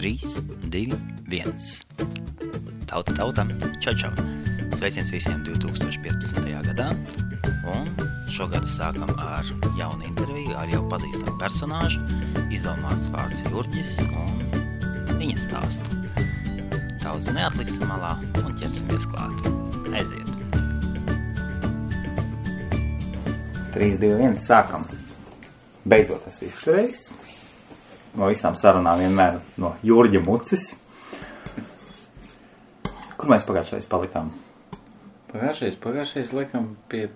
3, 2, 1. Tauta, čau. Sveiciens visiem 2015. gadā. Un šogadu sākam ar jaunu interviju, ar jau pazīstamu personāžu, izdomāts vārds Jurģis un viņa stāstu. Daudz neatliksim malā un ķersimies klāt. Aiziet! 3, 2, 1, sākam. Beidzot tas izturējis. No visām sarunām vienmēr no Jurģa mucis. Kur mēs pagājušais palikām? Pagājušais liekam pie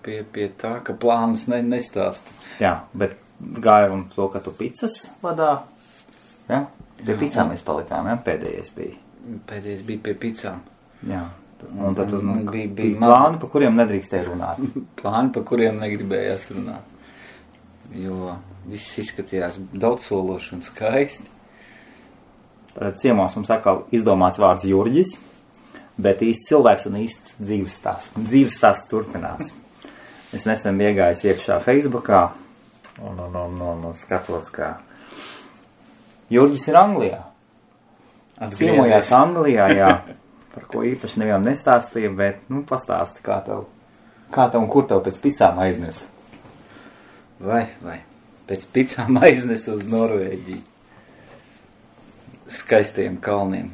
tā, ka plānus nestāsta. Jā, bet gāja un to, ka tu picas vadā. Jā, pie picām mēs palikām, jā, pēdējais bija. Pēdējais bija pie picām. Jā, un tad bija maz... plāni, pa kuriem nedrīkstēja runāt. Plāni, pa kuriem negribējās runāt. Jo viss izskatījās daudzsološi un skaisti. Tad ciemos mums atkal izdomāts vārds Jurģis, bet īsts cilvēks un īsts dzīves stāsts turpinās. Es nesen iegājis iekšā Facebookā un skatos, ka Jurģis ir Anglijā. Ciemojās Anglijā, jā, par ko īpaši nevienam nestāstīja, bet, pastāsti, kā tev un kur tev pēc picām aiznes. Vai, pēc picām aiznes uz Norvēģiju. Skaistajiem kalniem.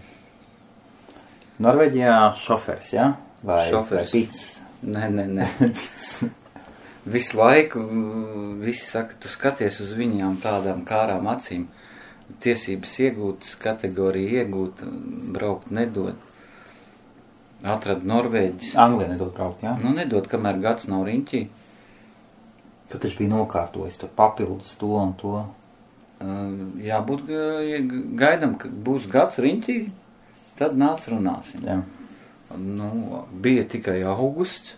Norvēģijā šofers, jā? Vai pics? Nē. Visu laiku, visi saka, tu skaties uz viņām tādām kārām acīm. Tiesības iegūt, kategoriju iegūt, braukt nedod. Atrad Norvēģis. Anglija nedod braukt, jā? Nedod, kamēr gads nav riņķī. Tu taču bija nokārtojis, tur papildus to un to. Jābūt gaidam, ka būs gads riņķī, tad nāc runāsim. Jā. Bija tikai augusts,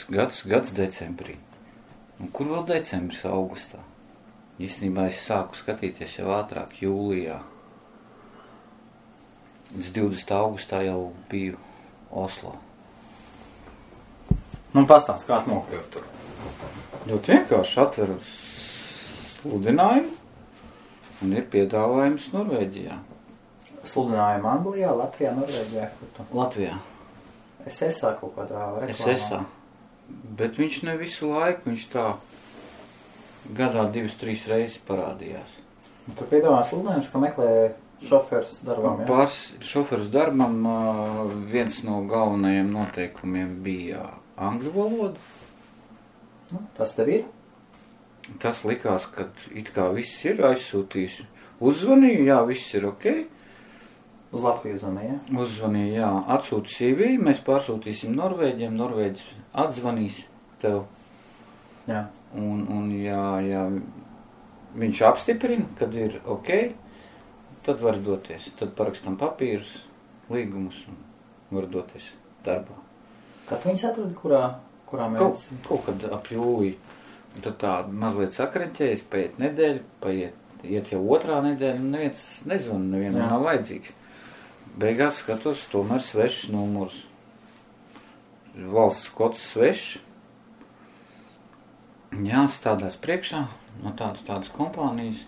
gads decembrī. Un kur vēl decembris augustā? Īstenībā es sāku skatīties jau ātrāk, jūlijā. Līdz 20. augustā jau biju Oslo. Pastāst, kā tu nokļūt tur? Ļoti vienkārši atveru sludinājumu un ir piedāvājums Norvēģijā. Sludinājumu Anglijā, Latvijā, Norvēģijā? Latvijā. SSA kaut kādā reklāmā. SSA. Bet viņš ne visu laiku, viņš tā gadā 2-3 reizes parādījās. Tu piedāvā sludinājums, ka meklē šoferus darbam, jā? Šoferus darbam viens no galvenajiem noteikumiem bija angļu valoda. Tas tev ir? Tas likās, ka it kā viss ir aizsūtījis. Uzzvanīju, jā, viss ir ok. Uz Latviju uzzvanīja, jā? Uzzvanīju, jā. Atsūti CV, mēs pārsūtīsim Norvēģiem, Norvēģis atzvanīs tev. Jā. Un ja viņš apstiprina, kad ir ok, tad var doties. Tad parakstam papīrus, līgumus un var doties darbā. Kad viņus atradi, kurā mēnesī? Kaut kad ap jūliju. Tad tā mazliet sakreķējas, paiet nedēļa, iet jau otrā nedēļa, un neviens nezvana, nevienam nav vajadzīgs. Beigās skatos, tomēr svešs numurs. Valsts kods svešs. Jā, stādās priekšā no tādas kompānijas.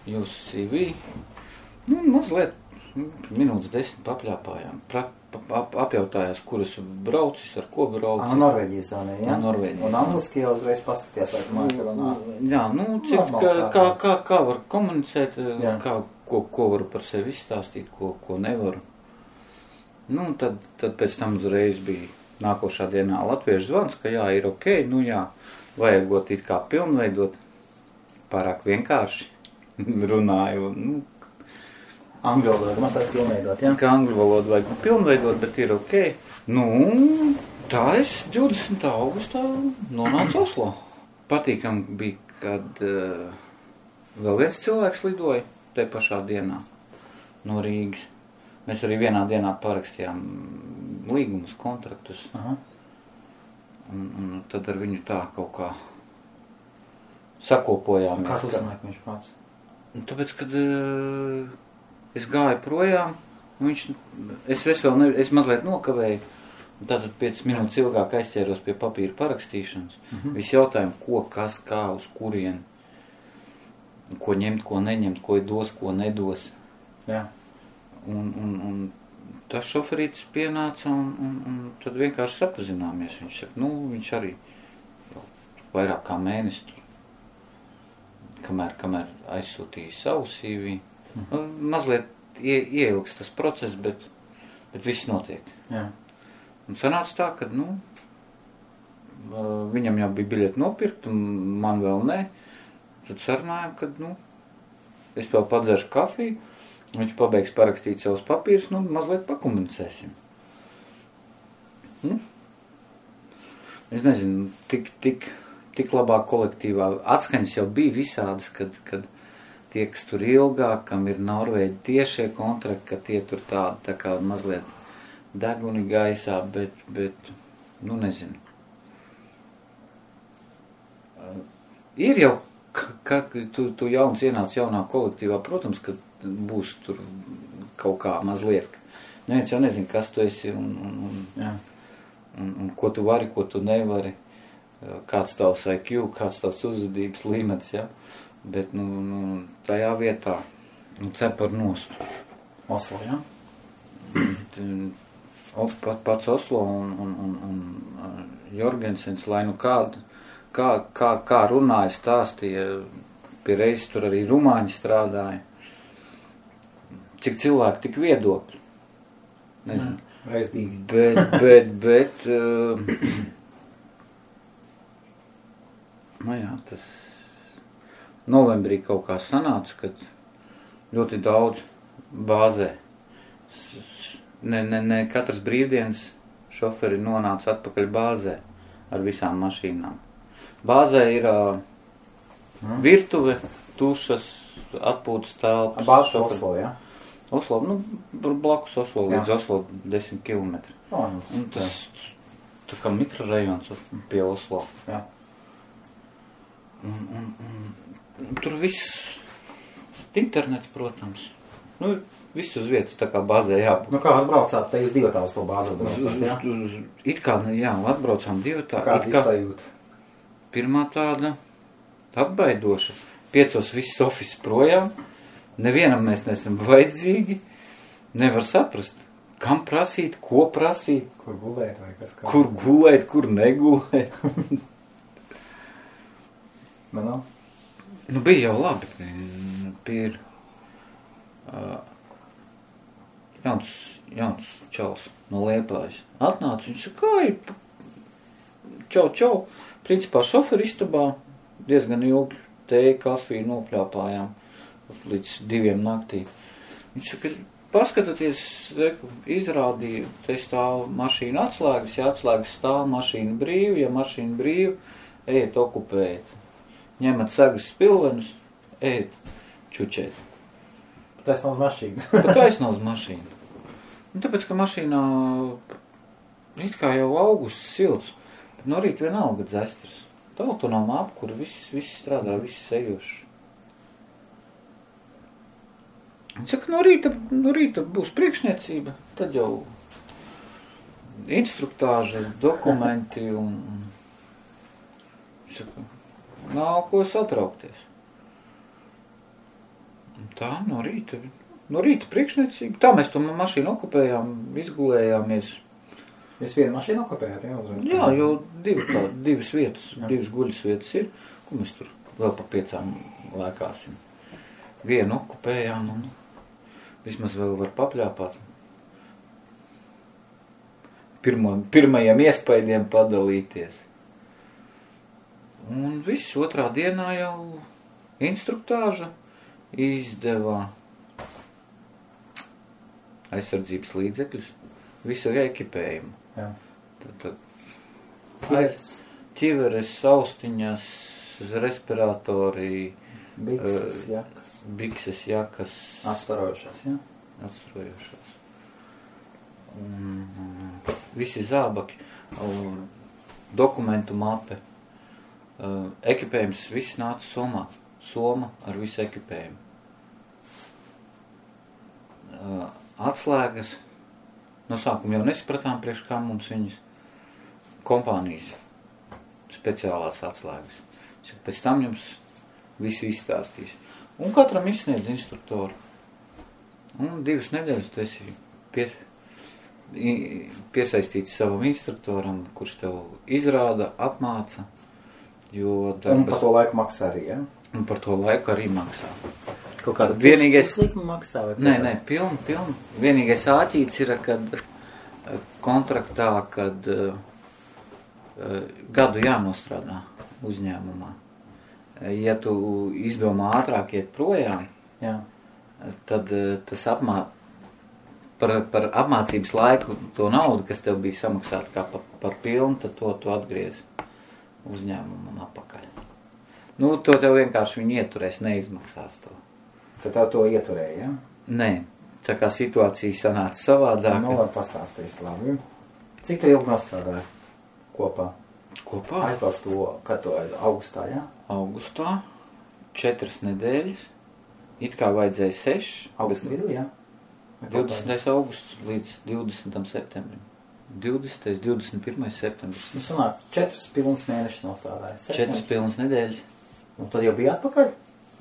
Jūsu CV. Mazliet minūtes 10 papļāpājām. Apjautājās, kur es braucis, ar ko braucis. Norvēģijas zonē, jā? Norvēģijas. Un angliski jau uzreiz paskatījās, vai tu māki runāt. Jā, kā var komunicēt, ko varu par sevi izstāstīt, ko nevaru. Tad pēc tam uzreiz bija nākošā dienā latviešu zvans, ka jā, ir ok, vajagot it kā pilnveidot, pārāk vienkārši runāju, Angļu valodu mazliet pilnveidot, jā? Kā angļu valodu vajag pilnveidot, bet ir ok. Tā es 20. augustā nonācu Oslo. Patīkam bija, kad vēl viens cilvēks lidoja te pašā dienā no Rīgas. Mēs arī vienā dienā parakstījām līgumus, kontraktus. Aha. Un tad ar viņu tā kaut kā sakopojāmies. Kā tu sanāk viņš pats? Tāpēc, kad es gāju projām, es mazliet nokavēju, tātad 5 minūtes ilgāk aizķēros pie papīra parakstīšanas. Visi jautājumi, ko, kas, kā, uz kurien. ko ņemt, ko neņemt, ko dos, ko nedos. Jā. Un tas šoferītis pienāca un tad vienkārši sapazināmies. Viņš saka, viņš arī vairāk kā mēnesi tur, kamēr aizsūtīja savu CV. Mazliet ieilgs tas process, bet viss notiek. Jā. Un sanāca tā, ka, viņam jau bija biļeti nopirkt, un man vēl ne. Tad sarunājām, ka, es vēl padzeršu kafiju, viņš pabeigs parakstīt savus papīrus, mazliet pakomunicēsim. Es nezinu, tik labā kolektīvā atskaņas jau bija visādas, kad tie, kas tur ilgāk, kam ir Norvēģi tiešie kontrakti, ka tie tur tā kā mazliet deguni gaisā, bet nezinu. Ir jau, ka tu jauns ienāc jaunā kolektīvā, protams, ka būs tur kaut kā mazliet. Neviens jau nezina, kas tu esi un ko tu vari, ko tu nevari, kāds tavs IQ, kāds tavs uzvedības līmenis, ja? Bet, tajā vietā, cepar nost. Oslo, jā? Pats Oslo un Jorgensens, lai kā runāja, stāstīja, pie reizes tur arī rumāņi strādāja. Cik cilvēki, tik viedokļi. Nezinu. Reizdīgi. Bet tas novembrī kaut kā sanāca, kad ļoti daudz bāzē. Ne katras brīvdienas šoferi nonāca atpakaļ bāzē ar visām mašīnām. Bāzē ir virtuve, tušas, atpūtas telpas. Bāzes Oslo, jā? Oslo, blakus Oslo, līdz Oslo 10 kilometri. Un tas tā kā mikrorajons pie Oslo. Jā. Un tur viss, internets, protams. Viss uz vietas tā kā bāzē jābūt. Kā atbraucāt, te jūs divatā uz to bāzi atbraucāt, jā? It kā, jā, atbraucām divatā. Kāda izsajūta? Pirmā tāda atbaidoša. 5 viss ofis projām. Nevienam mēs nesam vajadzīgi. Nevar saprast, kam prasīt, ko prasīt. Kur gulēt vai kas kā? Kur gulēt, kur negulēt. Bija jau labi. Ir jauns čals no Liepājas. Atnāca, viņš saka, čau. Principā šoferi istabā diezgan ilgi tēju, kafiju nopļāpājām līdz 2 naktī. Viņš saka, paskatieties, izrādīja, te stāv mašīna atslēgas, ja atslēgas stāv mašīna brīva, ja mašīna brīva, ejiet okupēt. Ņemat sagas spilvenus, ejiet čučēt. Taisnā uz mašīnu. Taisnā uz mašīnu. Tāpēc, ka mašīnā it kā jau augusts silts, bet no rīta vienalga dzestras. Tā autonoma apkura, viss strādā, viss sejošs. Viņš saka, no rīta būs priekšniecība, tad jau instruktāža, dokumenti un viņš saka, nav ko satraukties. Tā, no rīta priekšniecība. Tā mēs to mašīnu okupējām, izgulējāmies. Jūs vienu mašīnu okupējāt, jā? Uzreiz? Jā, jo divas vietas, divas guļas vietas ir, ko mēs tur vēl pa 5 lēkāsim. Vienu okupējām un vismaz vēl var papļāpāt. Pirmajiem iespaidiem padalīties. Un viss otrā dienā jau instruktāža izdevā aizsardzības līdzekļus, visu ekipējumu. Jā. Tad ķiveres, austiņas, respiratori, bikses, jakas. Atstarojušās, jā? Atstarojušās. Visi zābaki, dokumentu mape, ekipējums, viss nāca somā. Soma ar visu ekipējumu. Atslēgas. No sākuma jau nesapratām, priekš kā mums viņas kompānijas speciālās atslēgas. Pēc tam jums visu izstāstīs. Un katram izsniedz instruktoru. Un 2 nedēļas tu esi piesaistīts savam instruktoram, kurš tev izrāda, apmāca. Un par to laiku maksā arī, ja? Un par to laiku arī maksā. Kaut kāda puslikuma maksā? Nē, pilnu. Vienīgais āķīts ir, kad kontraktā, kad gadu jānostrādā uzņēmumā. Ja tu izdomā ātrāk iet projām, jā, tad tas par apmācības laiku to naudu, kas tev bija samaksāta kā par pilnu, tad to atgriez uzņēmumam apakaļ. Nu, to tev vienkārši viņi ieturēs, neizmaksās to. Tad tev to ieturēja, ja? Nē, tā kā situācija sanāca savādāk. Nu, var pastāstīt labi. Cik tu ilgi nostrādāji kopā? Kopā? Aizbrauc to, kad to augustā, jā? Augustā, 4 nedēļas, it kā vajadzēja 6. Augusta vidū, jā? 20. augusts līdz 20. septembrim. 20. 21. septembris. Nu, sanāk, 4 pilnas mēnešus nostrādāja. 4 pilnas nedēļas. Un tad jau bija atpakaļ?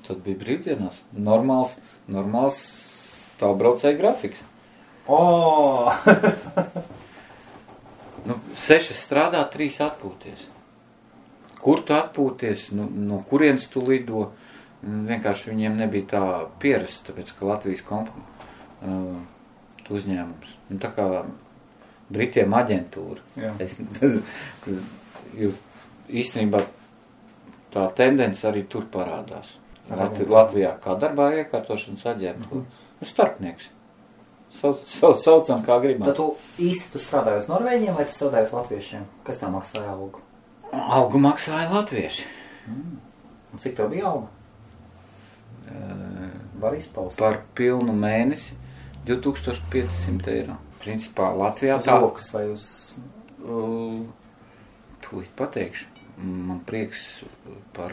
Tad bija brīvdienās. Normāls tālbraucēja grafiks. O! 6 strādā, 3 atpūties. Kur tu atpūties? No kurienes tu lido? Vienkārši viņiem nebija tā pierasta, tāpēc, ka Latvijas uzņēmums. Tā kā Britiem aģentūra. Īstenībā tā tendence arī tur parādās. Latvijā kā darbā iekārtošanas aģentūra. Starpnieks. Saucam kā gribam. Tad tu īsti strādāji uz Norvēģiem vai tu strādāji uz latviešiem? Kas tā maksāja algu? Algu maksāja latvieši. Un cik tev bija alga? Var izpaust? Par pilnu mēnesi 2500 eiro. Principā Latvijā uz rokas vai uz... Tūlīt pateikšu. Man prieks par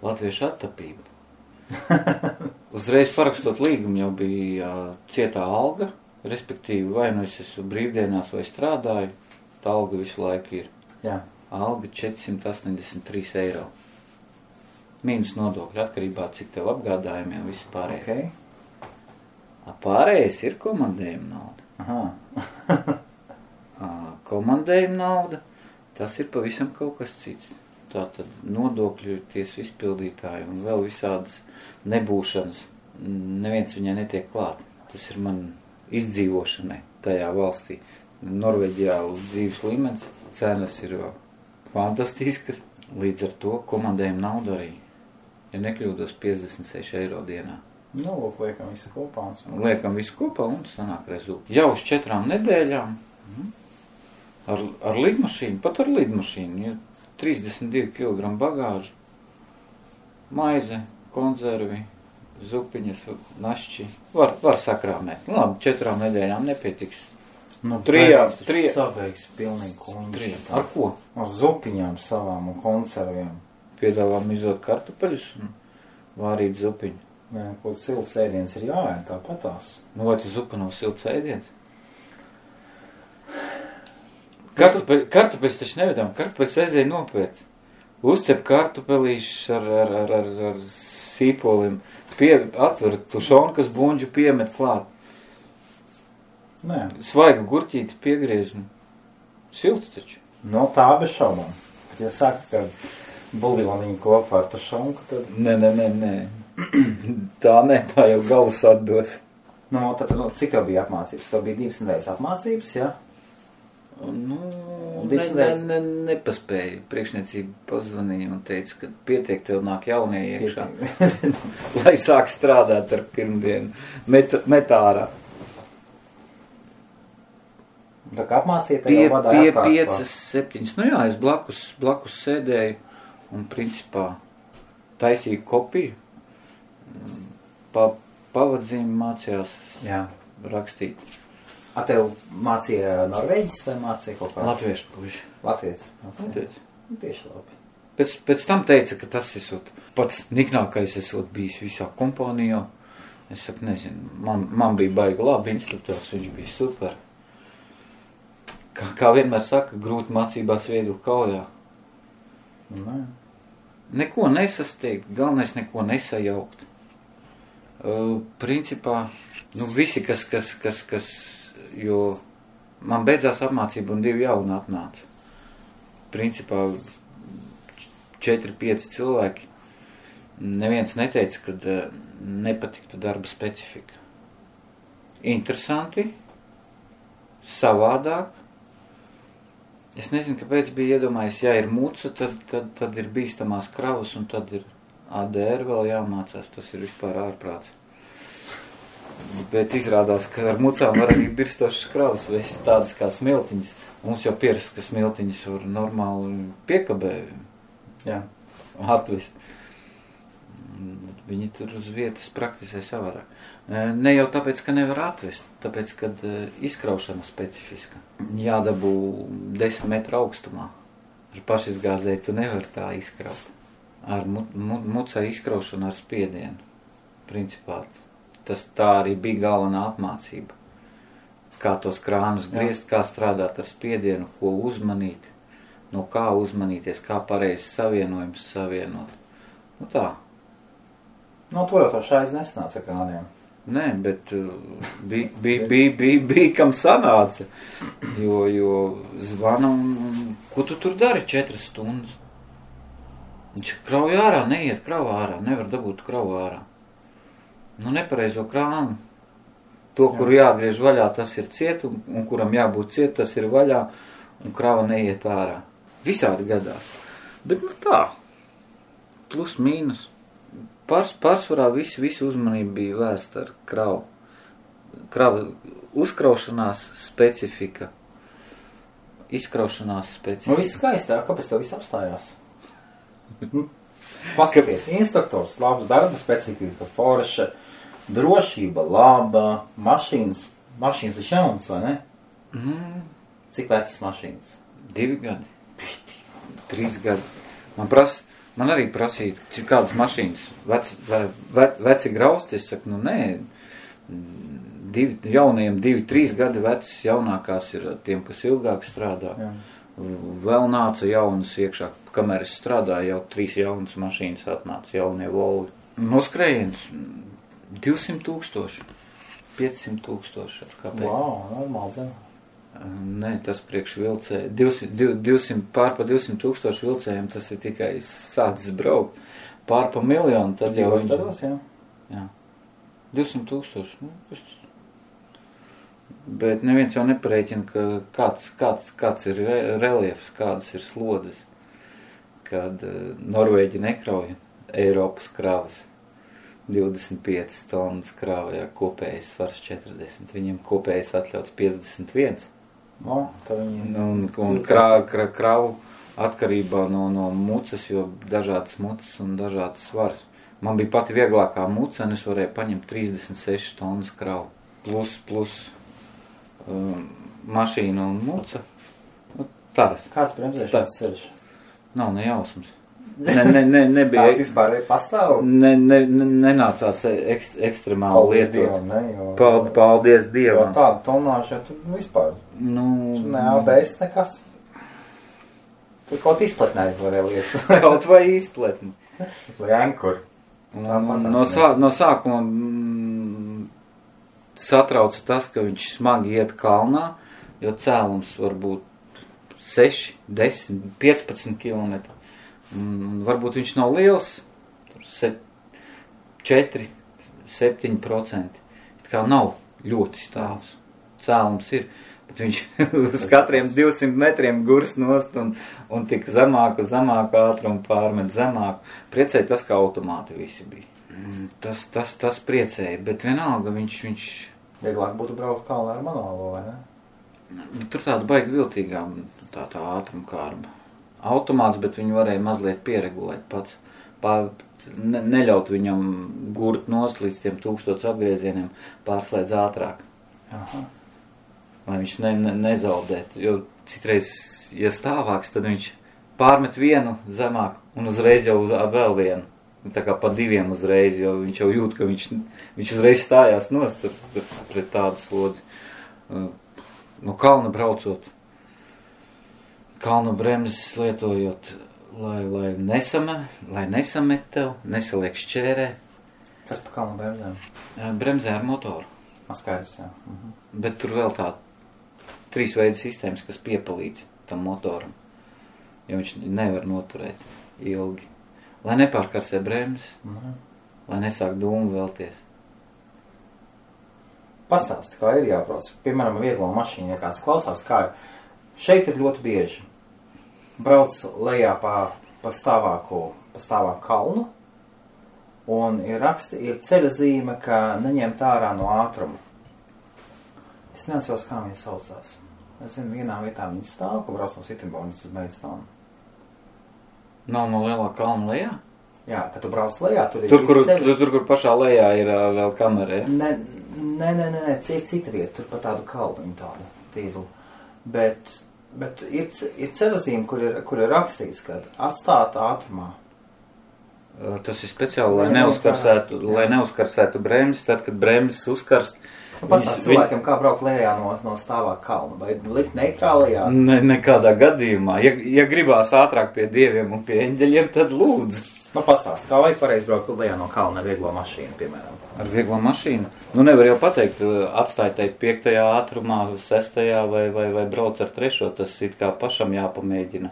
latviešu attapību. Uzreiz parakstot līgumu jau bija cietā alga, respektīvi vai nu es esmu brīvdienās vai strādāju, tā alga visu laiku ir. Jā. Alga 483 eiro. Mīnus nodokļi atkarībā, cik tev apgādājumiem viss pārējais. Okay. Pārējais ir komandējuma nauda. Aha. Komandējuma nauda, tas ir pavisam kaut kas cits. Tātad nodokļu tiesu izpildītāji un vēl visādas nebūšanas, neviens viņai netiek klāt. Tas ir man izdzīvošanai tajā valstī. Norvēģijā dzīves līmenis, cenas ir fantastiskas, līdz ar to komandējuma nauda arī, ja nekļūdos, 56 eiro dienā. Nu, liekam visu kopā. Liekam visu kopā un sanāk rezultāti. Jau uz 4 nedēļām ar lidmašīnu, pat ar lidmašīnu, ja 32 kg bagāžu, maize, konzervi, zupiņas, našķi. Var sakrāmēt. Labi, 4 nedēļām nepietiks. Nu, 3. Sabeigs pilnīgi kungi. Ar ko? Ar zupiņām savām un konserviem. Piedāvā mizot kartupeļus un vārīt zupiņu. Nē, kaut silts ēdiens ir jāēd, tāpatās. Nu, vai tu zupa nav silts ēdiens? Kartupeļus taču nevedām, kartupeļus aizēja nopēc. Uzcep kartupelīšus ar sīpoliem, atver tušonu, kas buņģu piemet klāt. Nē. Svaigu gurķīti piegriež. Silts taču. No tā bez šaubām. Bet ja saka, ka buljoniņu kopā ar tušonku, tad... Nē. Tā jau galvas atdos. No, tad, cik tev bija apmācības? Tev bija 2 nedēļas apmācības, jā? Nu, nepaspēju. Priekšniecība pazvanīja un teica, ka pietiek tev nāk jaunie iekšā. Lai sāk strādāt ar pirmdienu. Metārā. Tā kā apmācīja, tev jau vadāja apkārt. 5-7. Nu jā, es blakus sēdēju un principā taisīju kopiju. Pavadzīmi mācījās rakstīt. A tev mācīja Norvēģis vai mācīja kaut kāds? Latviešu puiši. Latvietis mācīja. Tieši labi. Pēc tam teica, ka tas esot pats niknākais esot bijis visā kompānijā. Es saku, nezinu, man bija baigi labi instruktors, viņš bija super. Kā vienmēr saka, grūti mācībās viegli kaujā. Nē. neko nesasteigt, galvenais neko nesajaukt. Principā, visi, kas, jo man beidzās apmācība un 2 jauni atnāca. Principā 4-5 cilvēki. Neviens neteica, ka nepatiktu darba specifika. Interesanti, savādāk. Es nezinu, kāpēc bija iedomājies, ja ir muca, tad ir bīstamās kravas un tad ir ADR vēl jāmācās. Tas ir vispār ārprāts. Bet izrādās, ka ar mucām var arī birstošas kravas vēst tādas kā smiltiņas. Mums jau pierast, ka smiltiņas var normāli piekabē atvest. Viņi tur uz vietas praktizē savādāk. Ne jau tāpēc, ka nevar atvest, tāpēc, kad izkraušana specifiska. Jādabū 10 metru augstumā. Ar pašizgāzēju tu nevar tā izkraut. Ar mucai izkraušanu ar spiedienu. Principā tā arī bija galvenā apmācība. Kā tos krānus griezt, kā strādāt ar spiedienu, ko uzmanīt, no kā uzmanīties, kā pareizi savienojums savienot. Tā. To jau to šais nesanāca ar krāniem. Nē, bet bija kam sanāca, jo zvana un ko tu tur dari 4 stundas? Viņš krauj ārā, neiet krauj ārā, nevar dabūt krauj ārā. Nepareizo krānu. To, kuru jāatgriež vaļā, tas ir ciet, un kuram jābūt ciet, tas ir vaļā, un krava neiet ārā. Visādi gadās. Bet tā, plus mīnus. Pārsvarā visi uzmanība bija vērsta ar kravu. Krava uzkraušanās specifika. Izkraušanās specifika. Viss skaistāk, kāpēc to viss apstājās? Paskaties, instruktors, labs darba specifika, forša, drošība, laba, mašīnas ir jaunas, vai ne? Cik vecas mašīnas? 2 gadi. 3 gadi. Man arī prasīja, cik kādas mašīnas veci grausti. Es saku, nē, jaunajiem 2-3 gadi vecs, jaunākās ir tiem, kas ilgāk strādā. Jā. Vēl nāca jaunas iekšā, kamēr es strādāju, jau 3 jaunas mašīnas atnāca, jaunie Volvi. Noskrējiens 200,000, 500,000. Kāpēc? Wow, normāli zem. Nē, tas priekš vilcēja. 200, pār pa 200,000 vilcējiem tas ir tikai sācis braukt. Pār pa 1 miljonu, tad jau... Gados, jā. 200,000. Bet neviens jau neparēķina, ka kāds ir reliefs, kādas ir slodzes. Kad Norvēģi nekrauja Eiropas kravas 25 tonnas krāvajā, kopējais svars 40. Viņiem kopējais atļauts 51. Un kravu atkarībā no mucas, jo dažādas mucas un dažādas svars. Man bija pati vieglākā muca, un es varēju paņemt 36 tonnas kravu. Plus mašīna un muca. Tāds. Kāds bremzēšanas ceļš? Nav nejausmas. Nebija. Tāds vispār pastāv? Nenācās ekstremāli lietot. Paldies Dievam. Jo tādu tonāžu, tu vispār. Ne ABS nekas. Tur kaut izpletnē aizvarē lietas. Kaut vai izpletni. Vai ankur. No sākuma satrauca tas, ka viņš smagi iet kalnā, jo cēlums var būt 6, 10, 15 kilometri. Varbūt viņš nav liels, 4, 7%. Kā nav ļoti stāvs. Cēlums ir, bet viņš uz katriem 200 metriem gurs nost un tik zemāku ātrumu pārmet zemāku. Priecēja tas, ka automāti visi bija. Tas priecēja, bet vienalga viņš... Vieglāk būtu braukt kalnā ar manuālo, vai ne? Tur tāda baigi viltīgā tā ātruma kārba. Automāts, bet viņu varēja mazliet pieregulēt pats. Neļaut viņam gurt nost līdz tiem 1000 apgriezieniem, pārslēdz ātrāk. Aha. Lai viņš nezaudētu, jo citreiz, ja stāvāks, tad viņš pārmet vienu zemāk un uzreiz jau vēl vienu. Tā kā pa 2 uzreiz, jo viņš jau jūt, ka viņš uzreiz stājās nost pret tādu slodzi. No kalna braucot, kalnu bremzes lietojot, lai nesamet tev, nesaliek šķērē. Kas pa kalnu bremzēm? Bremzē ar motoru. Skaidrs, jā. Bet tur vēl tā 3 veidu sistēmas, kas piepalīdz tam motoram, jo viņš nevar noturēt ilgi. Lai nepārkarsē bremzes, lai nesāk dūmu vēlties. Pastāsti, kā ir jābrauc. Piemēram, vieglo mašīnu, ja kāds klausās, kā ir. Šeit ir ļoti bieži. Brauc lejā pa stāvāku kalnu, un ir ceļa zīme, ka neņemt ārā no ātruma. Es neatceros, kā viņi saucās. Es zinu, vienā vietā viņi stāv, ka brauc no Sittenbornas uz Maidstone. Nav no lielā kalna lejā? Jā, kad tu brauc lejā, tur ir ceļa. Tur, kur pašā lejā ir vēl kamera, ja? Nē, cita vieta, tur pa tādu kalnu tādu tīzlu. Bet ir ceļazīme, kur ir rakstīts, ka atstāt ātrumā. Tas ir speciāli, lai neuzkarsētu bremzes, tad, kad bremzes uzkarst. Pastāst cilvēkiem, kā braukt lejā no stāvā kalna, vai likt neitrālajā? Nekādā gadījumā. Ja gribās ātrāk pie dieviem un pie eņģeļiem, tad lūdzu. Pastāst, kā vajag pareizi braukt lejā no kalna ar vieglo mašīnu, piemēram? Ar vieglo mašīnu? Nevar jau pateikt, atstāj teikt 5. ātrumā, 6. vai brauc ar 3. Tas ir kā pašam jāpamēģina.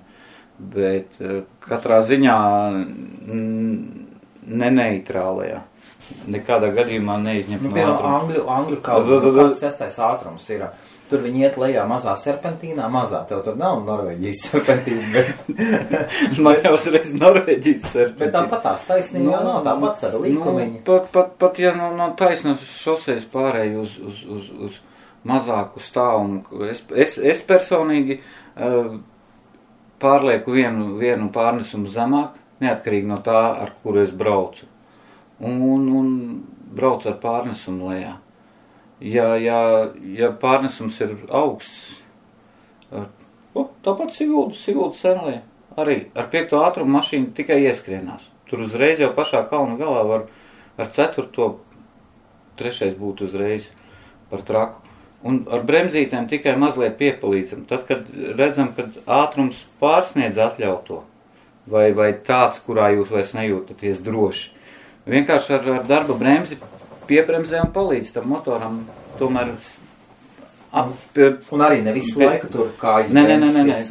Bet katrā ziņā neneitrālajā. Nekādā gadījumā neizņemt no ātruma. Angļu kalna, kāds 6. ātrums ir. Tur viņi iet lejā mazā serpentīnā, tev tur nav Norvēģijas serpentīna. Man jau uzreiz Norvēģijas serpentīna. Bet tāpat tās taisnība nav, tāpat ar līkumiņu. Pat ja no taisnas šosejas pārēj uz mazāku stāvumu. Es personīgi pārlieku vienu pārnesumu zemāk, neatkarīgi no tā, ar kuru es braucu. Un braucu ar pārnesumu lejā. Ja pārnesums ir augsts, tāpat Siguldas senlē, arī ar 5. ātrumu mašīnu tikai ieskrienās. Tur uzreiz jau pašā kalna galā var ar 4. 3. būt uzreiz par traku. Un ar bremzītēm tikai mazliet piepalīdzam. Tad, kad redzam, kad ātrums pārsniedz atļauto, vai tāds, kurā jūs vairs nejūtaties droši. Vienkārši ar darba bremzi piebremzē un palīdz tam motoram tomēr un arī ne visu laiku tur kājas bremzes.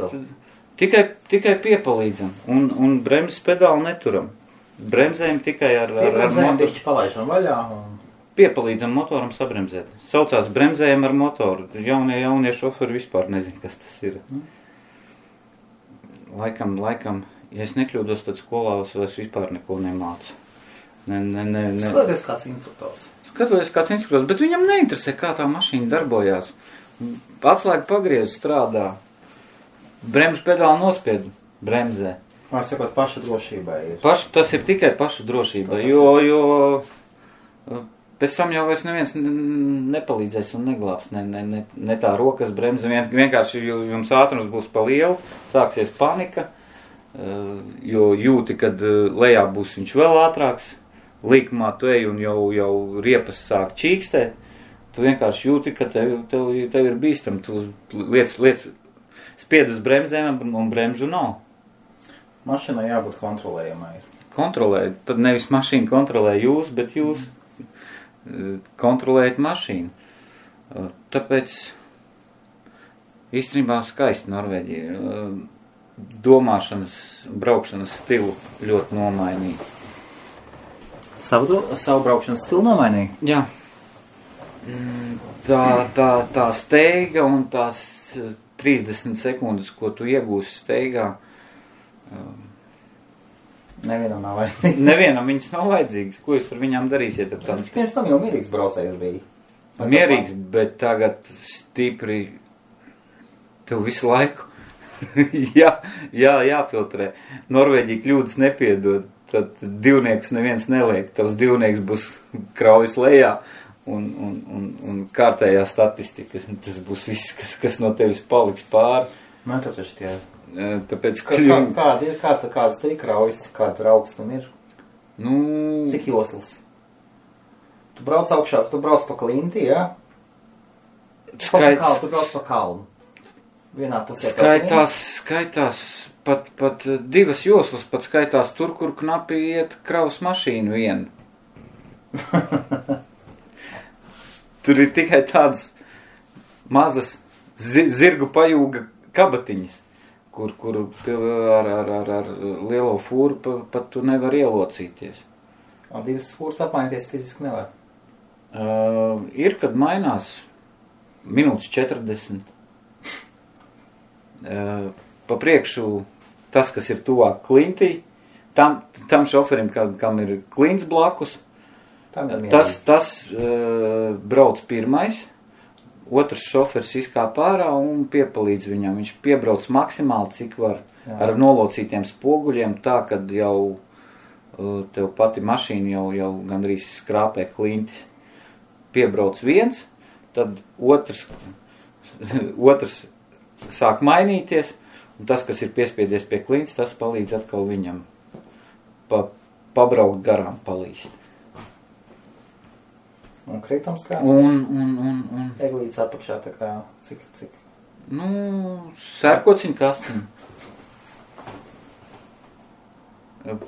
Tikai piepalīdzam un bremzes pedāli neturam. Bremzējam tikai ar motoru. Bišķi palaižam vaļā un piepalīdzam motoram sabremzēt. Saucās bremzējam ar motoru. Jaunie šoferi vispār nezin, kas tas ir. Laikam, ja es nekļūdos, tad skolā es vispār neko nemācu. Skatoties kāds instruktors. Bet viņam neinteresē, kā tā mašīna darbojās. Atslēga pagriez strādā. Bremžu pedāli nospied bremzē. Var sakot, paša drošībai ir. Tas ir tikai paša drošībai, jo pēc tam jau vairs neviens nepalīdzēs un neglābs. Ne tā rokas bremze, vienkārši jums ātrums būs pa lielu, sāksies panika, jo jūti, kad lejā būs viņš vēl ātrāks. Līkumā tu ej un jau riepas sāk čīkstēt, tu vienkārši jūti, ka tev ir bīstam, tu liec spied uz bremzēm un bremžu nav. Mašīnai jābūt kontrolējamai. Kontrolēt, tad nevis mašīna kontrolē jūs, bet jūs kontrolējat mašīnu. Tāpēc īstenībā skaisti Norvēģija. Domāšanas, braukšanas stilu ļoti nomainīja. Savu braukšanas stilu nomainīja? Jā. Tā steiga un tās 30 sekundes, ko tu iegūsi steigā. Nevienam nav vajadzīgs. Nevienam viņas nav vajadzīgas. Ko jūs ar viņām darīsiet? Pirms tam jau mierīgs braucējs bija. Mierīgs, bet tagad stipri tev visu laiku jāfiltrē. Norvēģija kļūdas nepiedod. Tad divniekus neviens neliek. Tavs divnieks būs kraujas lejā un kārtējā statistika. Tas būs viss, kas no tevis paliks pāri. Man to taču tie. Tāpēc, kādas te ir kraujas, kāda tur augstuma ir? Cik joslas? Tu brauc augšā, tu brauc pa klinti, jā? Tu brauc pa kalnu. Vienā pusē skaitās pat 2 joslas pat skaitās tur, kur knapi iet kravas mašīnu vienu. Tur ir tikai tādas mazas zirgu pajūga kabatiņas, kur ar lielo fūru pat tu nevar ielocīties. Un 2 fūras apmainīties fiziski nevar? Ir, kad mainās minūtes 40. Pa priekšu tas, kas ir tuvāk klintī, tam šoferim, kam ir klints blakus, tas brauc pirmais, otrs šofers izkāp ārā un piepalīdz viņam. Viņš piebrauc maksimāli, cik var, ar nolocītiem spoguļiem, tā, kad jau tev pati mašīna jau gandrīz skrāpē klintis. Piebrauc viens, tad otrs sāk mainīties, un tas, kas ir piespiedies pie klintis, tas palīdz atkal viņam pabraukt garām, palīst. Un kritums kāds? Un Eglītes apakšā tā kā, cik? Sērkociņu kastiņu.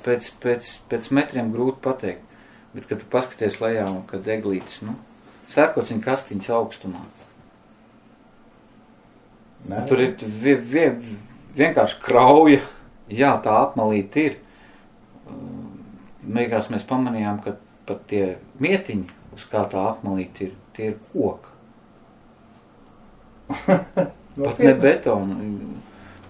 Pēc metriem grūti pateikt, bet, kad tu paskaties lejā un kad eglītes, sērkociņu kastiņas augstumā. Ne. Tur ir vienkārši krauja, jā, tā apmalīte ir. Beigās mēs pamanījām, ka pat tie mietiņi, uz kā tā apmalīte ir, tie ir koka. Pat ne betona.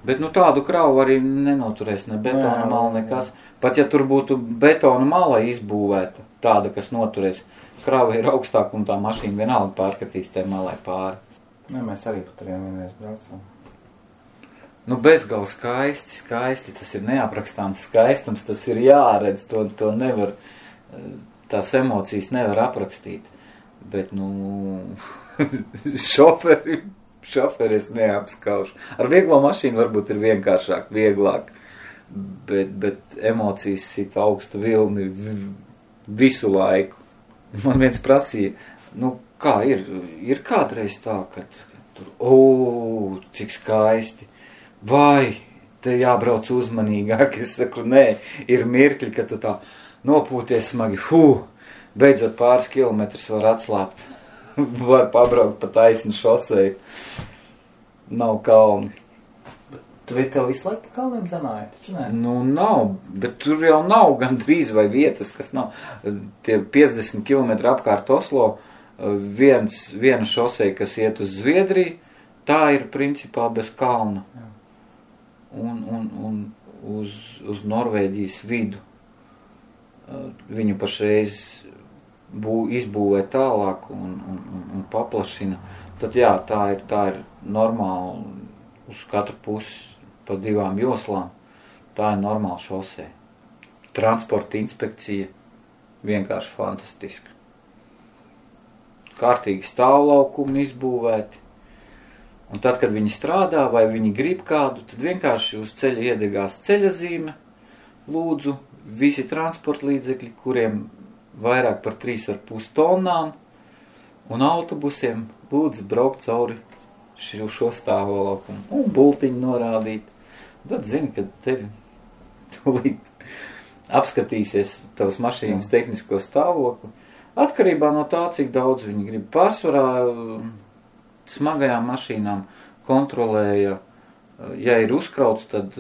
Bet tādu kravu arī nenoturēs ne betona mala, nekas. Pat ja tur būtu betona mala izbūvēta, tāda, kas noturēs, krava ir augstāk un tā mašīna vienalga pārkatīs tai malai pāri. Mēs arī pat turiem vienreiz braucam. Bezgal skaisti, tas ir neaprakstāms skaistums, tas ir jāredz, to nevar, tās emocijas nevar aprakstīt. Bet, šoferis neapskauž. Ar vieglo mašīnu varbūt ir vienkāršāk, vieglāk, bet emocijas sit augstu vilni visu laiku. Man viens prasīja, kā ir kādreiz tā, ka tur, cik skaisti, vai te jābrauc uzmanīgāk, es saku, nē, ir mirkļi, ka tu tā nopūties smagi, beidzot pāris kilometrus var atslāpt, var pabraukt pa taisnu šoseju, nav kalni. Tu tev visu laiku pa kalniem dzenāji, taču nē? Nav, bet tur jau nav gandrīz vai vietas, kas nav. Tie 50 km apkārt Oslo, viena šoseja, kas iet uz Zviedriju, tā ir principā bez kalna. Un uz Norvēģijas vidu. Viņu pašreiz izbūvē tālāk un paplašina. Tad jā, tā ir normāli uz katru pusi pa 2 joslām. Tā ir normāla šosē. Transporta inspekcija vienkārši fantastiska. Kārtīgi stāvlaukumi izbūvēti. Un tad, kad viņi strādā vai viņi grib kādu, tad vienkārši uz ceļa iedegās ceļazīme. Lūdzu, visi transporta līdzekļi, kuriem vairāk par 3,5 tonnām un autobusiem, lūdzu braukt cauri šo stāvlaukumu un bultiņu norādīt. Tad zini, ka tevi tūlīt apskatīsies tavas mašīnas tehnisko stāvokli. Atkarībā no tā, cik daudz viņi grib. Pārsvarā smagajām mašīnām kontrolēja, ja ir uzkrauts, tad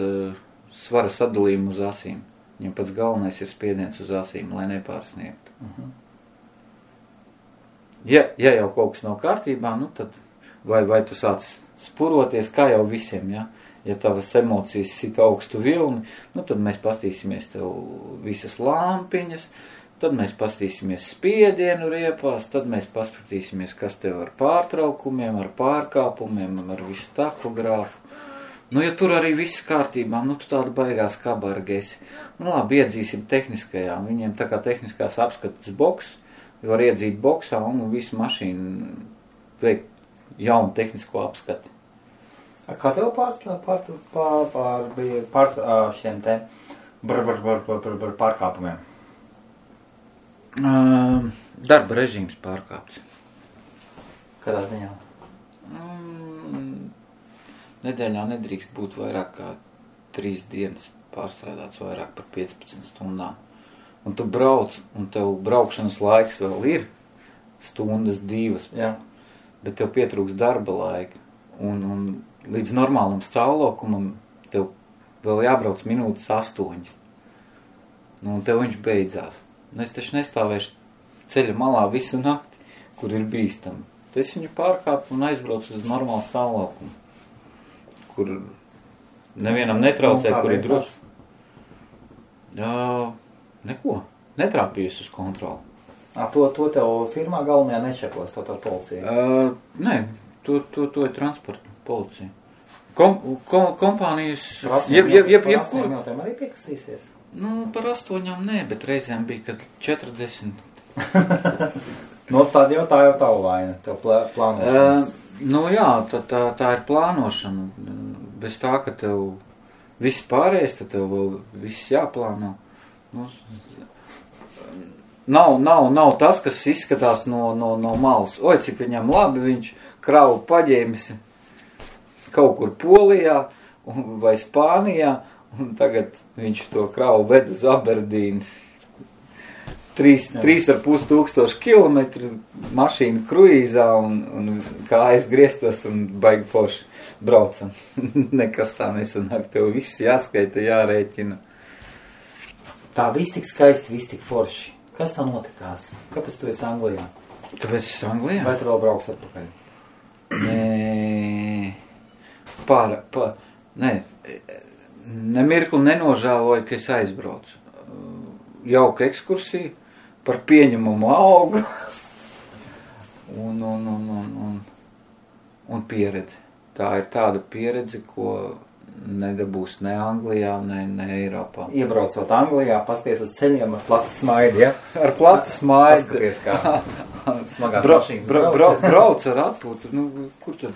svara sadalījumu uz asīm. Viņam pats galvenais ir spiediens uz asīm, lai nepārsniegtu. Ja jau kaut kas nav kārtībā, tad vai tu sāc spuroties, kā jau visiem, ja? Ja tavas emocijas sit augstu vilni, tad mēs pastīsimies tev visas lampiņas, tad mēs pastīsimies spiedienu riepās, tad mēs paskatīsimies, kas tev ar pārtraukumiem, ar pārkāpumiem, ar visu tahogrāfu. Ja tur arī viss kārtībā, tu tāda baigās kabarga esi. Labi, iedzīsim tehniskajām. Viņiem tā kā tehniskās apskatas boks, var iedzīt boksā un visu mašīnu veikt jaunu tehnisko apskati. Kā tev pār šiem te pārkāpumiem? Darba režīms pārkāpts. Kādā ziņā? Nedēļā nedrīkst būt vairāk kā 3 dienas pārstrādāts vairāk par 15 stundām. Un tu brauc, un tev braukšanas laiks vēl ir stundas 2. Jā. Bet tev pietrūks darba laika. Un līdz normālam stāvlokumam tev vēl jābrauc minūtes 8. Nu, un tev viņš beidzās. Nu, es taču nestāvēšu ceļa malā visu nakti, kur ir bīstami. Es viņu pārkāpu un aizbraucu uz normālu stāvlokumu, kur nevienam netraucē, kur ir drošs. Neko. Netrāpījis uz kontroli. To tev firmā galvenajā nečekos, to policija? Nē, to ir transporta policija. Kompānijas... Par 8 minūtēm arī piekasīsies? Nu, par 8 nē, bet reizēm bija, kad 40. Nu, tā jau tavu vaina, tev plānošanas. Nu jā, tā ir plānošana. Bez tā, ka tev viss pārējais, tad tev vēl viss jāplāno. Nu, nav tas, kas izskatās no malas. Oi, cik viņam labi, viņš kravu paģēmis kaut kur Polijā vai Spānijā, un tagad viņš to kravu ved uz Aberdīnu. 3,5 kilometru mašīnu kruīzā un kājas griestos un baigi forši braucam. Nekas tā nesanāk, tev viss jāskaita, jārēķina. Tā viss tik skaisti, viss tik forši. Kas tā notikās? Kāpēc tu esi Anglijā? Kāpēc es Anglijā? Vai tu vēl brauks atpakaļ? Nē, nē, nemirkli nenožēloju, ka es aizbraucu. Jauka ekskursija par pieņemumu algu un pieredzi. Tā ir tāda pieredze, ko nedabūs ne Anglijā, ne Eiropā. Iebraucot Anglijā, pasties uz ceļiem ar platu smaidu, ja? Ar platu smaidu. Paskaties, kā smagās mašīnas brauc ar atpūtu. Nu, kur tad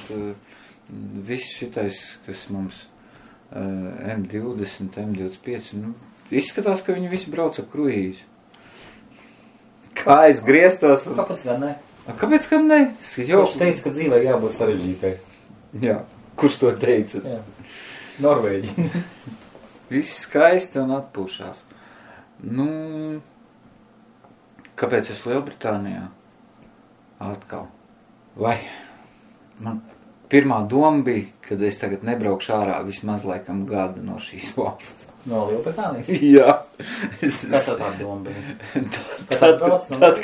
viss šitais, kas mums M20, M25, nu, izskatās, ka viņi visi brauc ar kruīzi. Kā es griestos. Kāpēc gan ne? Kāpēc gan ne? Kurš teica, ka dzīvē jābūt sarežģītai? Jā, kurš to teica? Jā. Norvēģi. Viss skaisti un atpūšās. Nu, kāpēc es Lielbritānijā? Atkal. Vai man pirmā doma bija, kad es tagad nebraukšu ārā vismaz laikam gadu no šīs valsts. No Lielbritānijas? Jā. Kas tā doma bija? Tad,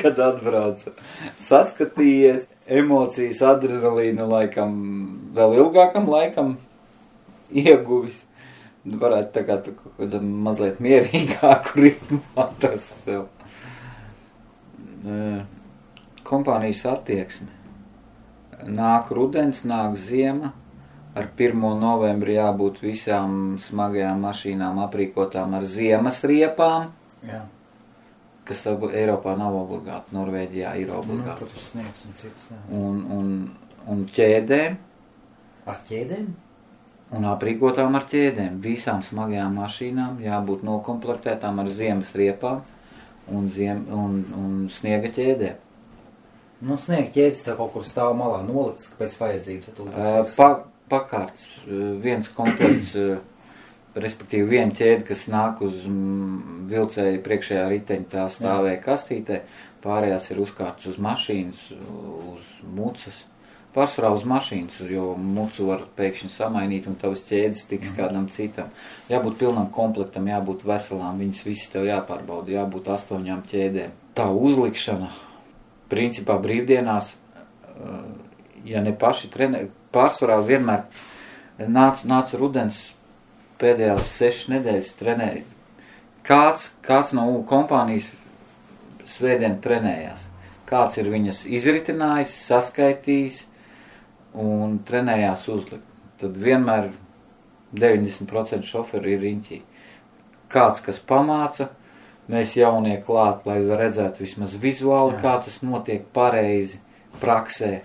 kad atbraucu. Saskatījies, emocijas, adrenalīnu laikam, vēl ilgākam laikam ieguvis. Varētu tā kā tu kaut mazliet mierīgāku ritmu atrast sev. Kompānijas attieksme. Nāk rudens, nāk ziema. Ar 1. novembri jābūt visām smagajām mašīnām aprīkotām ar ziemas riepām. Jā. Kas Eiropā nav obligāti, Norvēģijā ir obligāti. Nu, sniegs un cits, jā. Un ķēdēm. Ar ķēdēm? Un aprīkotām ar ķēdēm. Visām smagajām mašīnām jābūt nokomplektētām ar ziemas riepām un sniega ķēdēm. Nu, sniega ķēdes tā kaut kur stāv malā nolikts, pēc vajadzības. Pakārts, viens komplekts, respektīvi viena ķēde, kas nāk uz vilcēja priekšējā riteņa, tā stāvēja kastītē, pārējās ir uzkārts uz mašīnas, uz mucas. Pārsvarā uz mašīnas, jo mucu var pēkšņi samainīt un tavas ķēdes tiks kādam citam. Jābūt pilnam komplektam, jābūt veselām, viņas visas tev jāpārbauda, jābūt 8 ķēdēm. Tā uzlikšana, principā brīvdienās, ja ne paši trenē, pārsvarā vienmēr nāca rudens pēdējās 6 nedēļas trenēja. Kāds no kompānijas svētdien trenējās. Kāds ir viņas izritinājis, saskaitījis un trenējās uzlikt. Tad vienmēr 90% šoferi ir riņķī. Kāds, kas pamāca, mēs jaunie klāt, lai redzētu vismaz vizuāli, kā tas notiek pareizi praksē.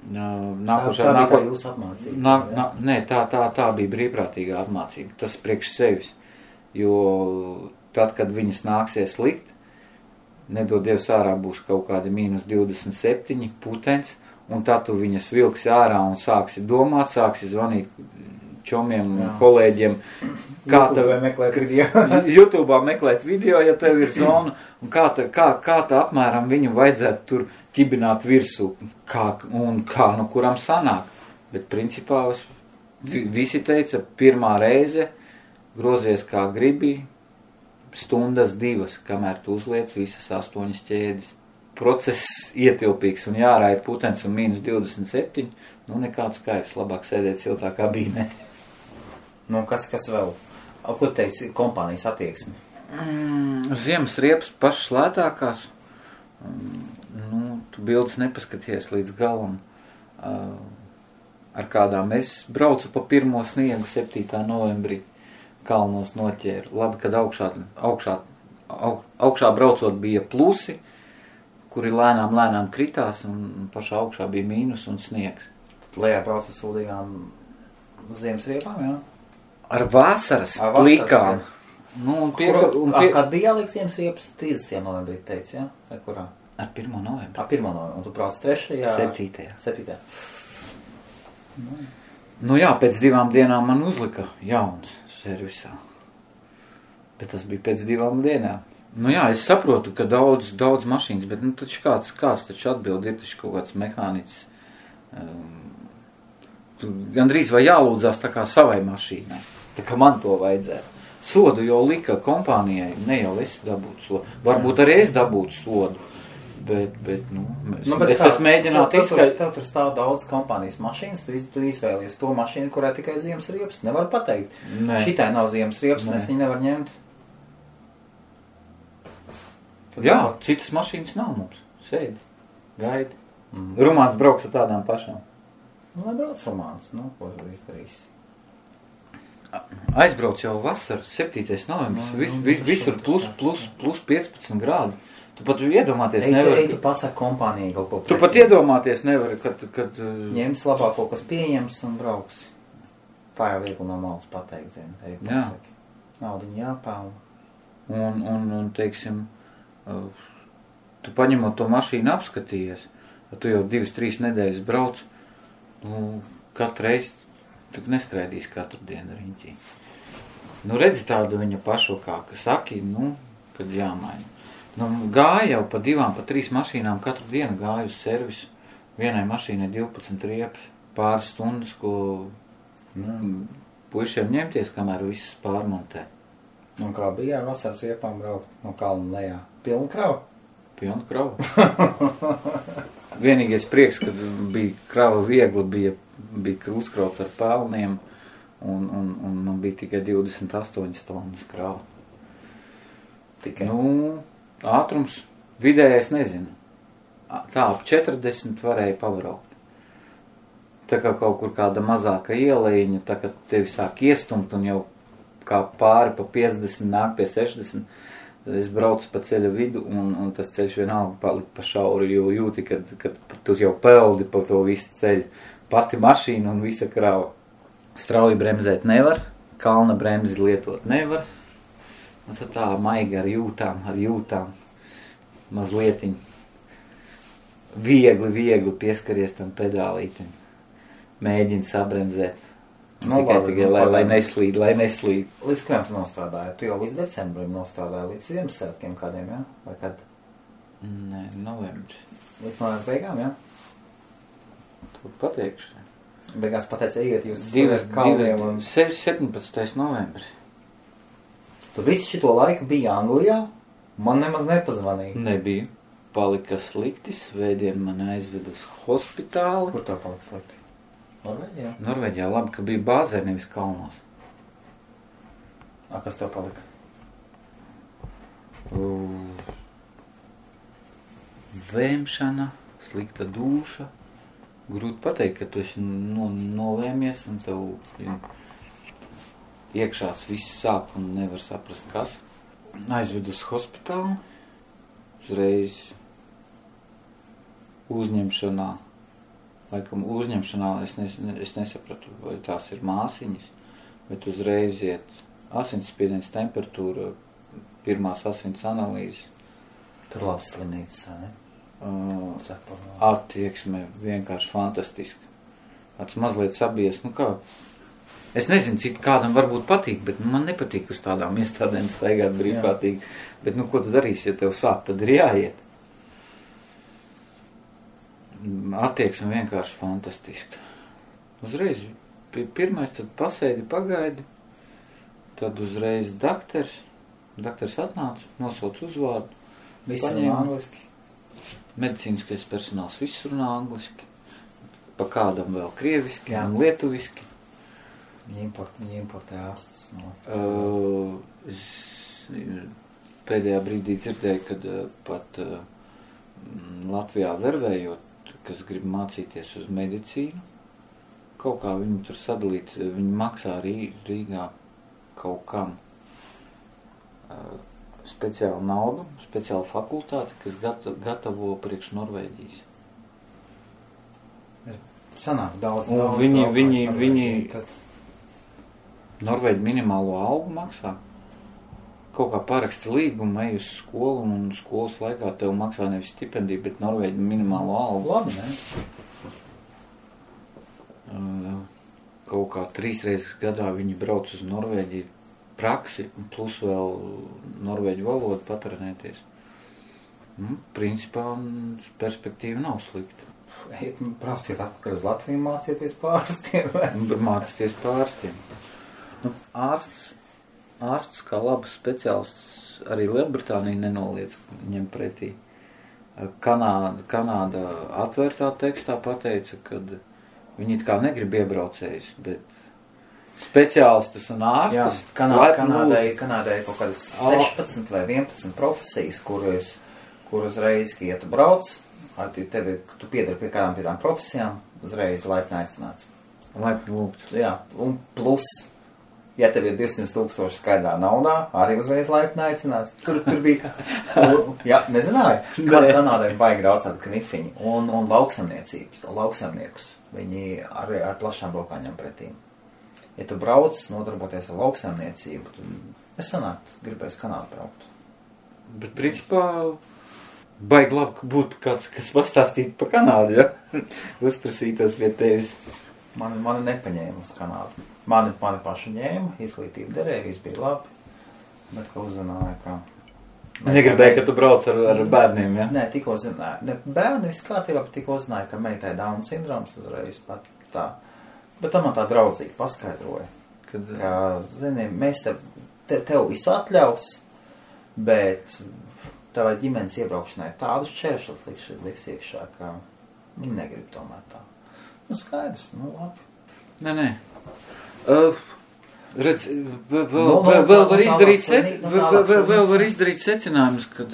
Tā bija jūsu apmācība? Nē, tā bija brīvprātīgā apmācība. Tas priekš sevis. Jo tad, kad viņas nāksies likt, nedod Dievs ārā būs kaut kādi -27 putenis, un tad tu viņas vilksi ārā un sāksi domāt, sāksi zvanīt čomiem, kolēģiem. YouTube'ā meklēt video, ja tev ir zona, un kā tā apmēram viņu vajadzētu tur ķibināt virsū, no kuram sanāk. Bet principā visi teica, pirmā reize grozies kā gribi, stundas 2, kamēr tu uzliec visas 8 ķēdes. Process ietilpīgs un jārāja putens un -27, nekāds kaivs, labāk sēdēt siltā kabīnē. Kas vēl? Ko teici kompānijas attieksmi? Ziemas riepas pašas lētākās. Tu bildes nepaskaties līdz galam. Ar kādām es braucu pa pirmo sniegu 7. novembrī kalnos noķēru. Labi, kad augšā braucot bija plusi, kuri lēnām kritās, un pašā augšā bija mīnus un sniegs. Tad lejā brauc ar sūdīgām ziemas riepām, jā? Ar vasaras plikām. Kad bija jāliek ziemas riepas? 30. novembrī teici, jā? Vai kurā? Ar 1. novembrī. Ar 1. novembrī. Un tu brauc 3. 7. Jā, pēc 2 dienām man uzlika jauns servisā. Bet tas bija pēc 2 dienām. Es saprotu, ka daudz mašīnas, bet taču kāds taču atbild, ir taču kaut kāds mehāniķis. Gandrīz vai jālūdzās tā kā savai mašīnai, tā kā man to vajadzētu. Sodu jau lika kompānijai, ne jau es dabūtu sodu. Varbūt arī es dabūtu sodu, bet es esmu mēģināt izskaidrot. Tev tur stāv daudz kompānijas mašīnas, tu izvēlies to mašīnu, kurā tikai ziemas riepas. Nevar pateikt. Šitai nav ziemas riepas, es viņu nevar ņemt. Jā, citas mašīnas nav mums. Sēdi, gaidi. Rumāns brauks ar tādām pašām. Nebrauc Rumāns, ko tu izdarīs? Aizbrauc jau vasar, 7. novembris, visur plus 15 grādi. Tu pat iedomāties nevari. Tu pasaki kompānijai kaut ko. Tu pat iedomāties nevari, kad ņems labāko, kas pieņems un brauks. Tā jau viegli no malas pateikt, zini. Pasaki. Naudiņu jāpelna. Un teiksim, tu paņemot to mašīnu apskatījies, tu jau 2-3 nedēļas brauc, katru reizi tu neskraidīs katru dienu riņķī. Redzi tādu viņa pašokā, ka saki, kad jāmaina. Gāja jau pa 2, pa 3 mašīnām katru dienu gāju uz servisu. Vienai mašīnai 12 riepas, pāris stundas, ko puišiem ņemties, kamēr visas pārmontē. Un kā bija vasaras riepām braukt no kalna lejā? Pilna krava? Pilna krava. Vienīgais prieks, kad bija krava viegli, bija uzkrauts ar pelniem, un man bija tikai 28 tonnas krava. Tikai? Ātrums vidējais nezinu. Tā ap 40 varēja pabraukt. Tā kā kaut kur kāda mazāka ielejiņa, tā kā tevi sāk iestumt un jau kā pāri pa 50 nāk pie 60, es braucu pa ceļa vidu un tas ceļš vienalga palika pa šauru, jo jūti, kad tu jau peldi pa to visu ceļu. Pati mašīna un visa krava. Strauji bremzēt nevar, kalna bremzi lietot nevar. Un tad tā maiga ar jūtām, mazlietiņ. Viegli pieskaries tam pedālītim. Mēģini sabremzēt. Tikai, lai neslīd. Līdz kādiem tu nostrādāji? Tu jau līdz decembrim nostrādāji, līdz Ziemassvētkiem kādiem, jā? Vai kad? Nē, novembris. Līdz novembra beigām, jā? Tu pateikšu. Beigās pateici, ejiet jūs kalniem un... 17. novembris. Tu visu šito laiku biji Anglijā? Man nemaz nepazvanīja. Nebija. Palika slikti, svētdien mani aizved uz hospitāli. Kur tā palika slikti? Norvēģijā? Norvēģijā, labi, ka bija bāzē, nevis kalnos. Kas tev palika? Vēmšana, slikta dūša. Grūti pateikt, ka tu esi nolēmies un tev iekšās viss sāp un nevar saprast, kas. Aizved uz hospitālu, uzreiz uzņemšanā. Laikam uzņemšanā es nesapratu, vai tās ir māsiņas, bet uzreiz iet asinsspiediens, temperatūra, pirmās asins analīzes. Tur labs slimnīcas, ne? Attieksme vienkārši fantastiska. Tāds mazliet sabies, Es nezinu, cik kādam varbūt patīk, bet man nepatīk uz tādām iestādēm staigāt brīvprātīgi. Bet, ko tu darīsi, ja tev sāp, tad ir jāiet. Attieksme vienkārši fantastiska. Uzreiz pirmais, tad pasēdi, pagaidi, tad uzreiz daktars atnāca, nosauc uzvārdu. Visi runā angliski. Medicīniskais personāls viss runā angliski. Pa kādam vēl krieviski un lietuviski. Viņi importē ārstus no... Es pēdējā brīdī dzirdēju, kad pat Latvijā vervējot, kas grib mācīties uz medicīnu, kaut kā viņi tur sadalīt, viņi maksā Rīgā kaut kam speciālu naudu, speciālu fakultāti, kas gatavo priekš Norvēģijas. Sanāk daudz. Viņi Norvēģi minimālo algu maksā. Kaut kā paraksti līgumu, ej uz skolu un skolas laikā tev maksā nevis stipendiju, bet Norvēģi minimālo algu. Labi, ne? Kaut kā 3 reizes gadā viņi brauc uz Norvēģiju praksi, plus vēl norvēģu valodu patrenēties. Principā perspektīva nav slikta. Brauciet atpakaļ uz Latviju, mācieties pārstiem. Mācieties pārstiem. Ārsts kā labs speciālists arī Lielbritānija nenoliedz ņem pretī. Kanāda atvērtā tekstā pateica, ka viņi it kā negrib iebraucējus, bet speciālistus un ārstus. Kanādai kaut kādas 16 vai 11 profesijas, kur uzreiz, ja tu brauc, tu piedari pie kādām tām profesijām, uzreiz laipni aicināts. Laipni lūgts. Jā, un plus, ja tev ir 200,000 skaidrā naudā, arī uzreiz laipni aicināts. Tur bija, jā, nezināju, Kanādai baigi daudz tādu knifiņu. Un lauksaimniekus, viņi arī ar plašām rokām ņem pretī. Ja tu brauc, nodarboties ar lauksaimniecību, tad es sanākt, gribēs Kanādu braukt. Bet principā baigi labi būtu kāds, kas pastāstītu par Kanādu, ja? Uzprasītos pie tevis. Mani nepaņēma uz Kanādu. Mani pašu ņēma, izglītība derēja, viss bija labi, bet ka uzzināja, ka... Negribēja, ka tu brauc ar bērniem, ja? Nē, tikko zināja. Ne, bērni viss kārtībā, bet tikko zināja, ka meitai Down sindroms uzreiz pat tā. Bet tā man tā draudzīgi paskaidroja, ka, zini, mēs tev visu atļaus, bet tavai ģimenes iebraukšanai tādus čēršus liks iekšā, ka viņi negrib tomēr tā. Skaidrs, labi. Nē. Redz, vēl var izdarīt secinājumus, kad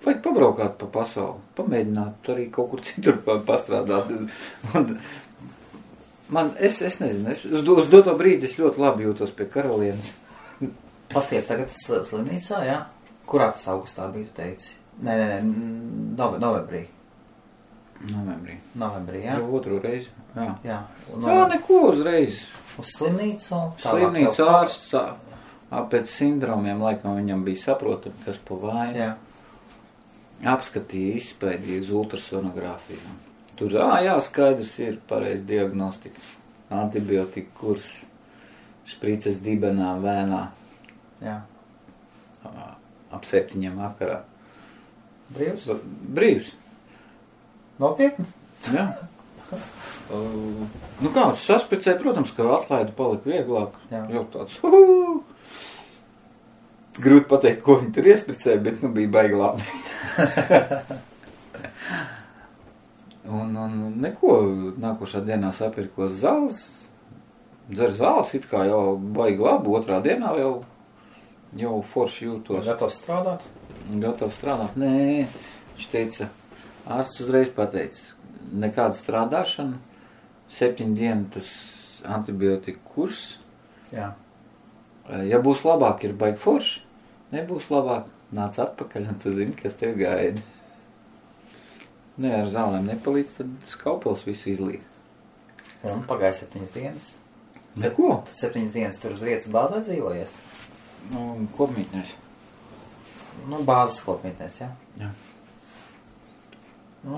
vajag pabraukāt pa pasauli, pamēģināt arī kaut kur citur pastrādāt. Es nezinu, uz doto brīdi es ļoti labi jūtos pie karalienes. Pasties tagad slimnīcā, jā? Kurā tas augustā bija, tu teici? Nē, novembrī. Novembrī, jā? Jau otru reizi, jā. Jā, neko uzreiz. Uz slimnīcu? Slimnīcu ārsts pēc sindromiem laikam viņam bija saprotami, kas pa vainu. Jā. Apskatīja, izpēdīja uz ultrasonogrāfiju. Tur, skaidrs ir pareiz diagnostika. Antibiotika kurs, šprices dibenā, vēnā. Jā. Ap 7 vakarā. Brīvs? Nopietni? Jā. Kāds saspicēja, protams, ka atlaida palika vieglāk. Jā. Jau tāds, grūti pateikt, ko viņi tur iespricēja, bet bija baigi labi. un neko, nākošā dienā sapirkos zāles, dzer zāles, it kā jau baigi labi, otrā dienā jau forši jūtos. Gatavs strādāt? Nē, viņš teica, ārsts uzreiz pateica, nekāda strādāšana, 7 dienu tas antibiotika kurs. Jā. Ja būs labāk, ir baigi forši, nebūs labāk, nāc atpakaļ, un tu zini, kas tev gaida. Nē, ar zālēm nepalīdz, tad skaupels visu izlīd. Un pagāja 7 dienas. Neko? Tad 7 dienas tur uz vietas bāzē dzīvojies? Kopmītnēs. Bāzes kopmītnēs, jā? Jā.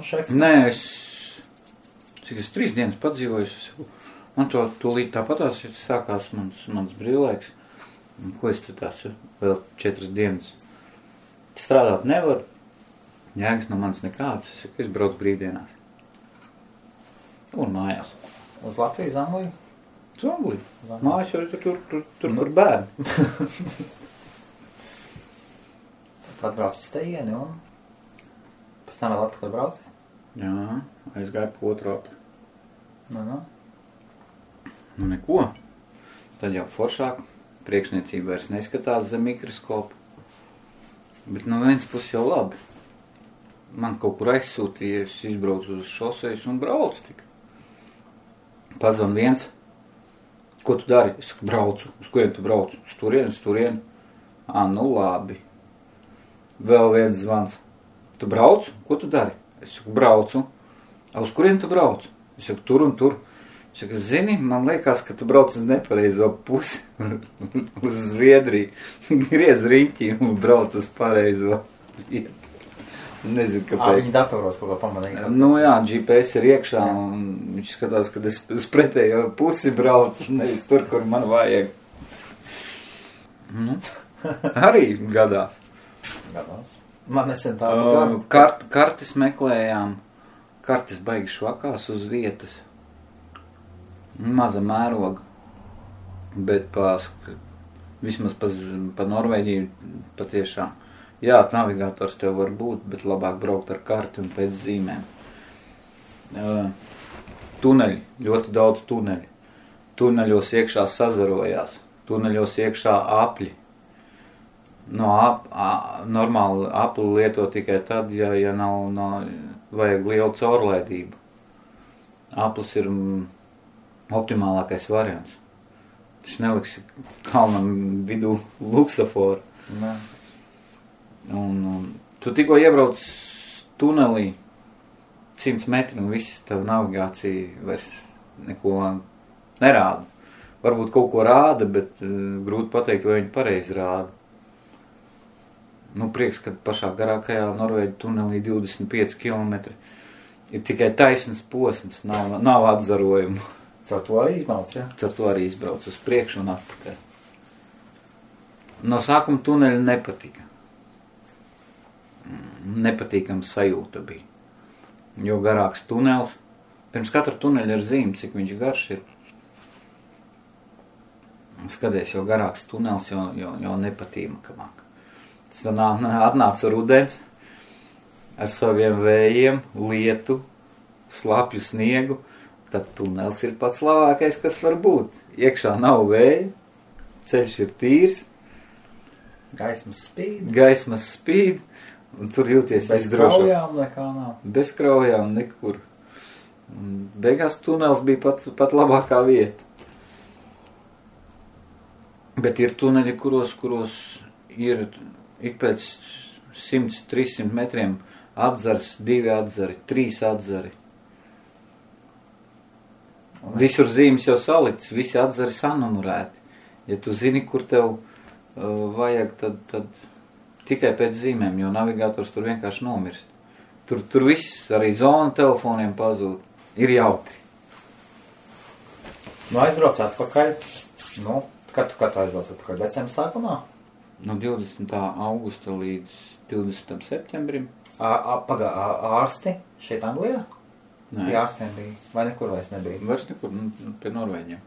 Šefi? Nē, cik es 3 dienas padzīvoju, man to līdz tāpatās sākās mans brīvlaiks. Ko es te tās vēl 4 dienas strādāt nevaru, jēgas no manis nekāds, es braucu brīvdienās. Un mājās. Uz Latviju, Zangliju? Zangliju. Mājas jau tur bērni. Tu atbrauc uz teieni un pēc tam vēl atpakaļ brauci? Jā, aizgāju pa otru apli. Nu. Nu neko. Tad jau foršāk. Priekšniecība vairs neskatās zem mikroskopu. Bet no viens puses jau labi. Man kaut kur aizsūtīja, es izbraucu uz šosejas un braucu tik. Pazvan viens. Ko tu dari? Es braucu. Uz kurien tu braucu? Uz turieni. Nu labi. Vēl viens zvans. Tu brauc? Ko tu dari? Es saku, braucu. Uz kurien tu brauc? Es saku, tur un tur. Es saku, zini, man liekas, ka tu brauc uz nepareizo pusi. Uz Zviedriju. Griez riņķi un brauc uz pareizo vietu. Nezinu, kāpēc. Viņi datoros kaut ko pamanīja. Nu jā, GPS ir iekšā un viņš skatās, kad es uz pretējo pusi braucu, nevis tur, kur man vajag. Arī gadās. Man nesen tādu Kartes meklējām. Kartes baigi švakās uz vietas. Maza mēroga. Bet vismaz pa Norvēģiju patiešām. Jā, navigators tev var būt, bet labāk braukt ar karti un pēc zīmēm. Tuneļi, ļoti daudz tuneļi. Tuneļos iekšā sazarojās. Tuneļos iekšā apļi. Normāli apli lieto tikai tad, ja nav vajag lielu caurlaidību. Aplis ir optimālākais variants. Taču neliksi kalnam vidū luksaforu. Nē. Un tu tikko iebrauc tunelī 100 metri un viss tev navigācija vairs neko nerāda. Varbūt kaut ko rāda, bet grūti pateikt, vai viņi pareizi rāda. Prieks, ka pašā garākajā Norvēģu tunelī 25 km ir tikai taisnas posms, nav atzarojumu. Caur to arī izbrauc, ja? Caur to arī izbrauc uz priekšu un atpakaļ. No sākuma tuneļa nepatika. Nepatīkama sajūta bija. Jo garāks tunels. Pirms katra tuneļa ir zīme, cik viņš garš ir. Skaties, jo garāks tunels, jo nepatīkamāk. Tas atnāca rudens ar saviem vējiem, lietu, slapju sniegu. Tad tunels ir pats labākais, kas var būt. Iekšā nav vēja, ceļš ir tīrs. Gaismas spīd. Un tur jūties visdrošāk. Bez kraujām nekā nav. Bez kraujām nekur. Un beigās tunels bija pat labākā vieta. Bet ir tuneļi, kuros ir ik pēc 100-300 metriem atzars, 2 atzari, 3 atzari. Visur zīmes jau salikts, visi atzari sanumurēti. Ja tu zini, kur tev vajag, tad tikai pēc zīmēm, jo navigators tur vienkārši nomirst. Tur viss, arī zona telefoniem pazūd. Ir jautri. Aizbrauc atpakaļ. Kad tu aizbrauc atpakaļ? Decembra sākumā? No 20. augusta līdz 20. septembrim. Ārsti šeit Anglijā? Nē. Pie ārstiem bija? Vai nekur vairs nebija? Vairs nekur, pie Norvēģiem.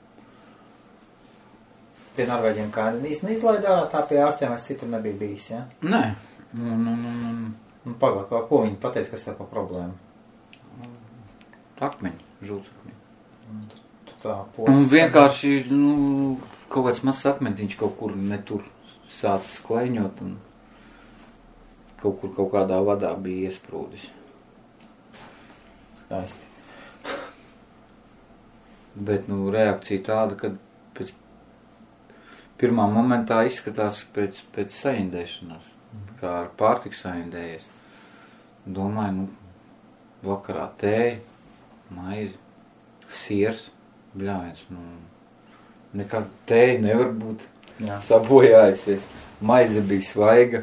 Pie Norvēģiem kā īsti neizlaidā, tā pie ārstiem vairs citur nebija bijis, ja? Nē. Pagāk, ko viņi pateica, kas tev pa problēmu? Akmeņi, žultsakmeņi. Un vienkārši, kaut kāds mazs akmentiņš kaut kur netur sācis kleņot un kaut kādā vadā bija iesprūdis. Skaisti. Bet, reakcija tāda, kad pēc pirmā momentā izskatās pēc saindēšanās, kā ar pārtiku saindējies. Domāju, vakarā tēja, maizi, siers, bļāviens, nekā tēja nevar būt sabojājusies. Maize bija svaiga,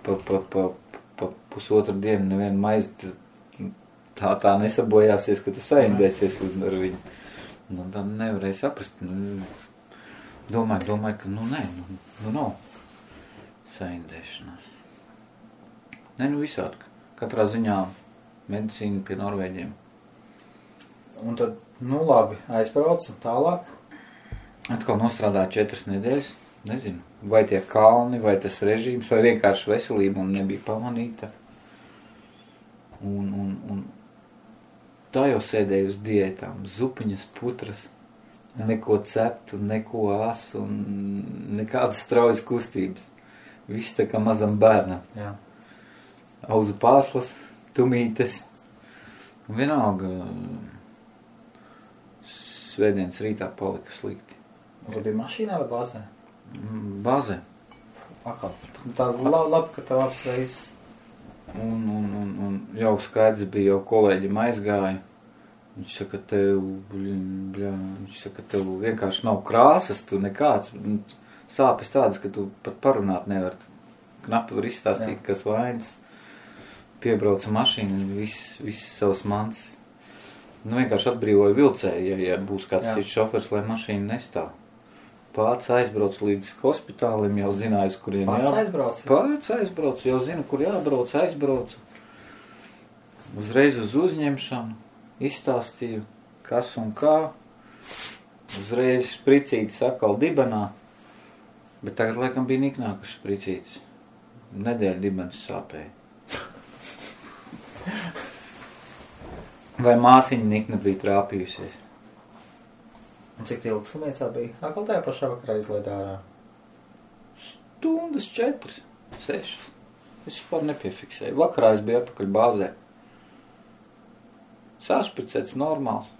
pa pusotru dienu nevienu maizi tā nesabojāsies, ka tu saindēsies ar viņu. Nu, tad nevarēja saprast. Domāju, ka nē, nav saindēšanās. Visādi. Katrā ziņā medicīna pie Norvēģiem. Un tad, labi, aizbraucu tālāk. Atkal nostrādāju 4 nedēļas. Nezinu, vai tie kalni, vai tas režīms, vai vienkārši veselība un nebija pamanīta. Un tā jau sēdēju uz diētām, zupiņas, putras, neko ceptu, neko asu un nekādas straujas kustības. Viss tā kā mazam bērnam. Jā. Auzu pārslas, tumītes. Un vienalga svētdienas rītā palika slikti. Vai bija mašīnā vai bāzē? Bāzē. Tā labi, ka tev apsveic. Un jau skaidrs bija, jau kolēģim aizgāja. Viņš saka, tev vienkārši nav krāsas, tu nekāds. Sāpes tādas, ka tu pat parunāt nevar. Knapi var izstāstīt, kas vainas. Piebrauca mašīna, viss savas mans. Vienkārši atbrīvoja vilcēju, ja būs kāds cits šofers, lai mašīna nestāv. Pats aizbrauc līdz hospitālim, jau zināju, kuriem Pats aizbrauc, jau zinu, kur jābrauc, aizbraucu. Uzreiz uz uzņemšanu, izstāstīju, kas un kā. Uzreiz špricītis atkal dibenā, bet tagad laikam bija niknākas špricītis. Nedēļa dibens sāpēja. Vai māsiņa nikna bija trāpījusies? Un cik ilgi slimnīcā bija? Atkal tajā pašā vakarā izlaid ārā? Stundas 4, 6. Es vispār nepiefiksēju. Vakarā es biju atpakaļ bāzē. Sašpricēts normāls.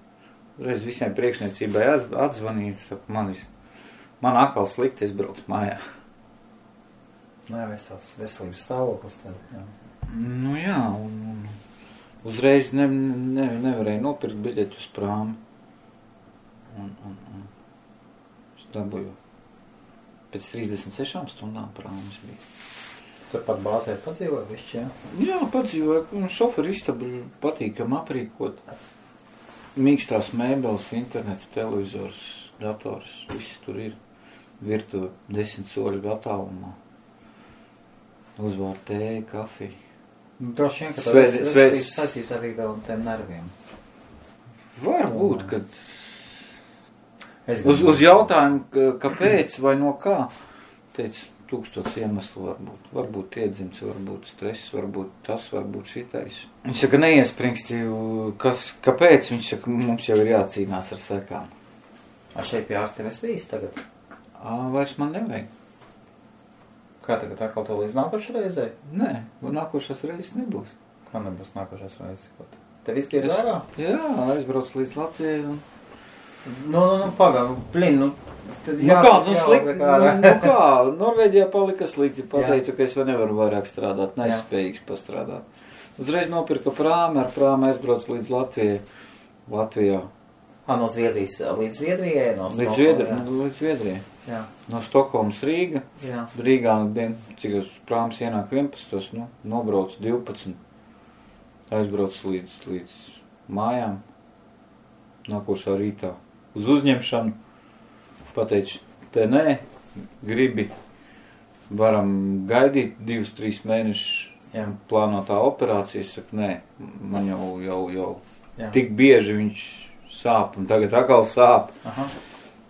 Reiz visiem priekšniecībai atzvanīts, man atkal slikti, es braucu mājā. Veselības stāvoklis tad, jā. Jā, un uzreiz nevarēju nopirkt biļeķu uz prāmi. Un es dabūju pēc 36 stundām prāmis bija. Turpat bāzē padzīvoja višķi, jā? Jā, padzīvoja, un šoferi istabu patīkam aprīkot. Mīkstās mēbeles, internets, televizors, dators, viss tur ir. Virtuve 10 soļu attālumā. Uzvār tēju, kafiju. Droši vien, ka tā veselības saistīt arī vēl tiem nerviem. Varbūt, kad uz jautājumu, kāpēc vai no kā, teica, 1000 iemeslu varbūt. Varbūt iedzimts, varbūt stress, varbūt tas, varbūt šitais. Viņš saka, neiespringsti, kāpēc? Viņš saka, mums jau ir jācīnās ar sekām. Šeit pie ārstiem es bijis tagad? Vairs man nevajag. Kā tagad atkal to līdz nākošais reizē? Nē, nākošais reizes nebūs. Kā nebūs nākošais reizes? Tev viss griez ārā? Jā, aizbrauc līdz Latvijai un... Pagāju, slikti, kā, Norvēģijā palika slikti, pateicu, ka es nevaru vairāk strādāt, nespējīgs pastrādāt. Uzreiz nopirka prāmi, ar prāmi aizbrauc līdz Latvijā. No Zviedrijas līdz Zviedrijai? Līdz Zviedrijai. Jā. No Stokholmas Rīga. Jā. Rīgā, cik uz prāmas ienāk 11, nobrauc 12. Aizbrauc līdz mājām. Nākošā rītā. Uz uzņemšanu. Pateicu, te nē, gribi, varam gaidīt 2-3 mēnešus plānotā operācija. Es saku, nē, man jau tik bieži viņš sāp, un tagad atkal sāp. Aha.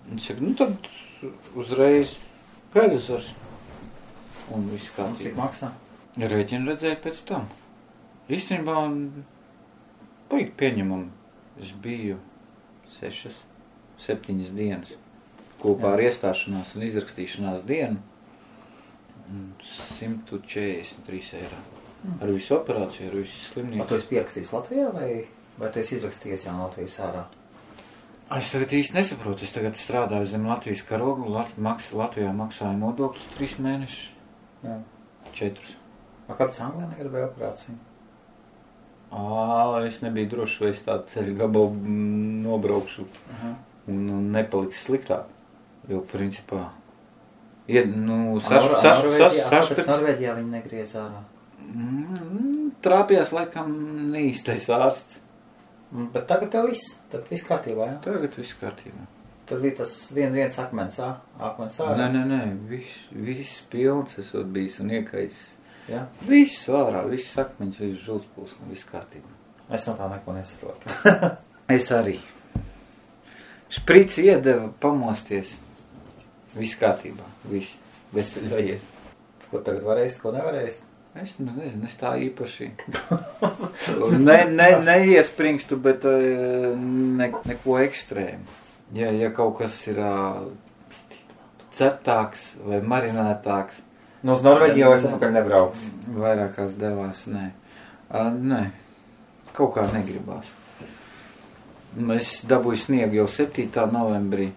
Viņš saka, tad uzreiz gaidasars. Un viss kā. Cik maksā? Rēķinu redzēju pēc tam. Īstenībā paīgi pieņemam. Es biju 6-7 dienas kopā ar iestāšanās un izrakstīšanās dienu 143 eiro. Ar visu operāciju, ar visu slimnīcu. Tu esi pierakstījis Latvijā vai tu esi izrakstījies jau Latvijas ārā? Es tagad īsti nesaprotu. Es tagad strādāju zem Latvijas karogu. Latvijā maksāju nodokļus 3 mēnešus. Jā. 4. Kāpēc Anglijā negribēja operāciju? Es nebiju droši, vai es tādu ceļu gabalu nobraukšu un nepaliks sliktāk. Jo, principā, Kāpēc Norvēģijā viņi negriez ārā? trāpījās laikam neīstais ārsts. Bet tagad tev viss kārtībā, jā? Tagad viss kārtībā. Tur bija tas viens akmens ārā. Nē, viss pilns esot bijis un iekais. Jā? Viss ārā, viss akmeņš, viss žulspūs un viss kārtībā. Es no tā neko nesaprotu. Es arī. Šprici iedeva pamosties. Viss kārtībā, viss veseļojies. Ko tagad varēs, ko nevarēs? Es nezinu, es tā īpaši neiespringstu, bet neko ekstrēmu. Ja kaut kas ir ceptāks vai marinētāks. Nu, uz Norvēģiju jau es atpakaļ nebrauks. Vairākās devās, nē. Nē, kaut kā negribās. Es dabūju sniegu jau 7. novembrī.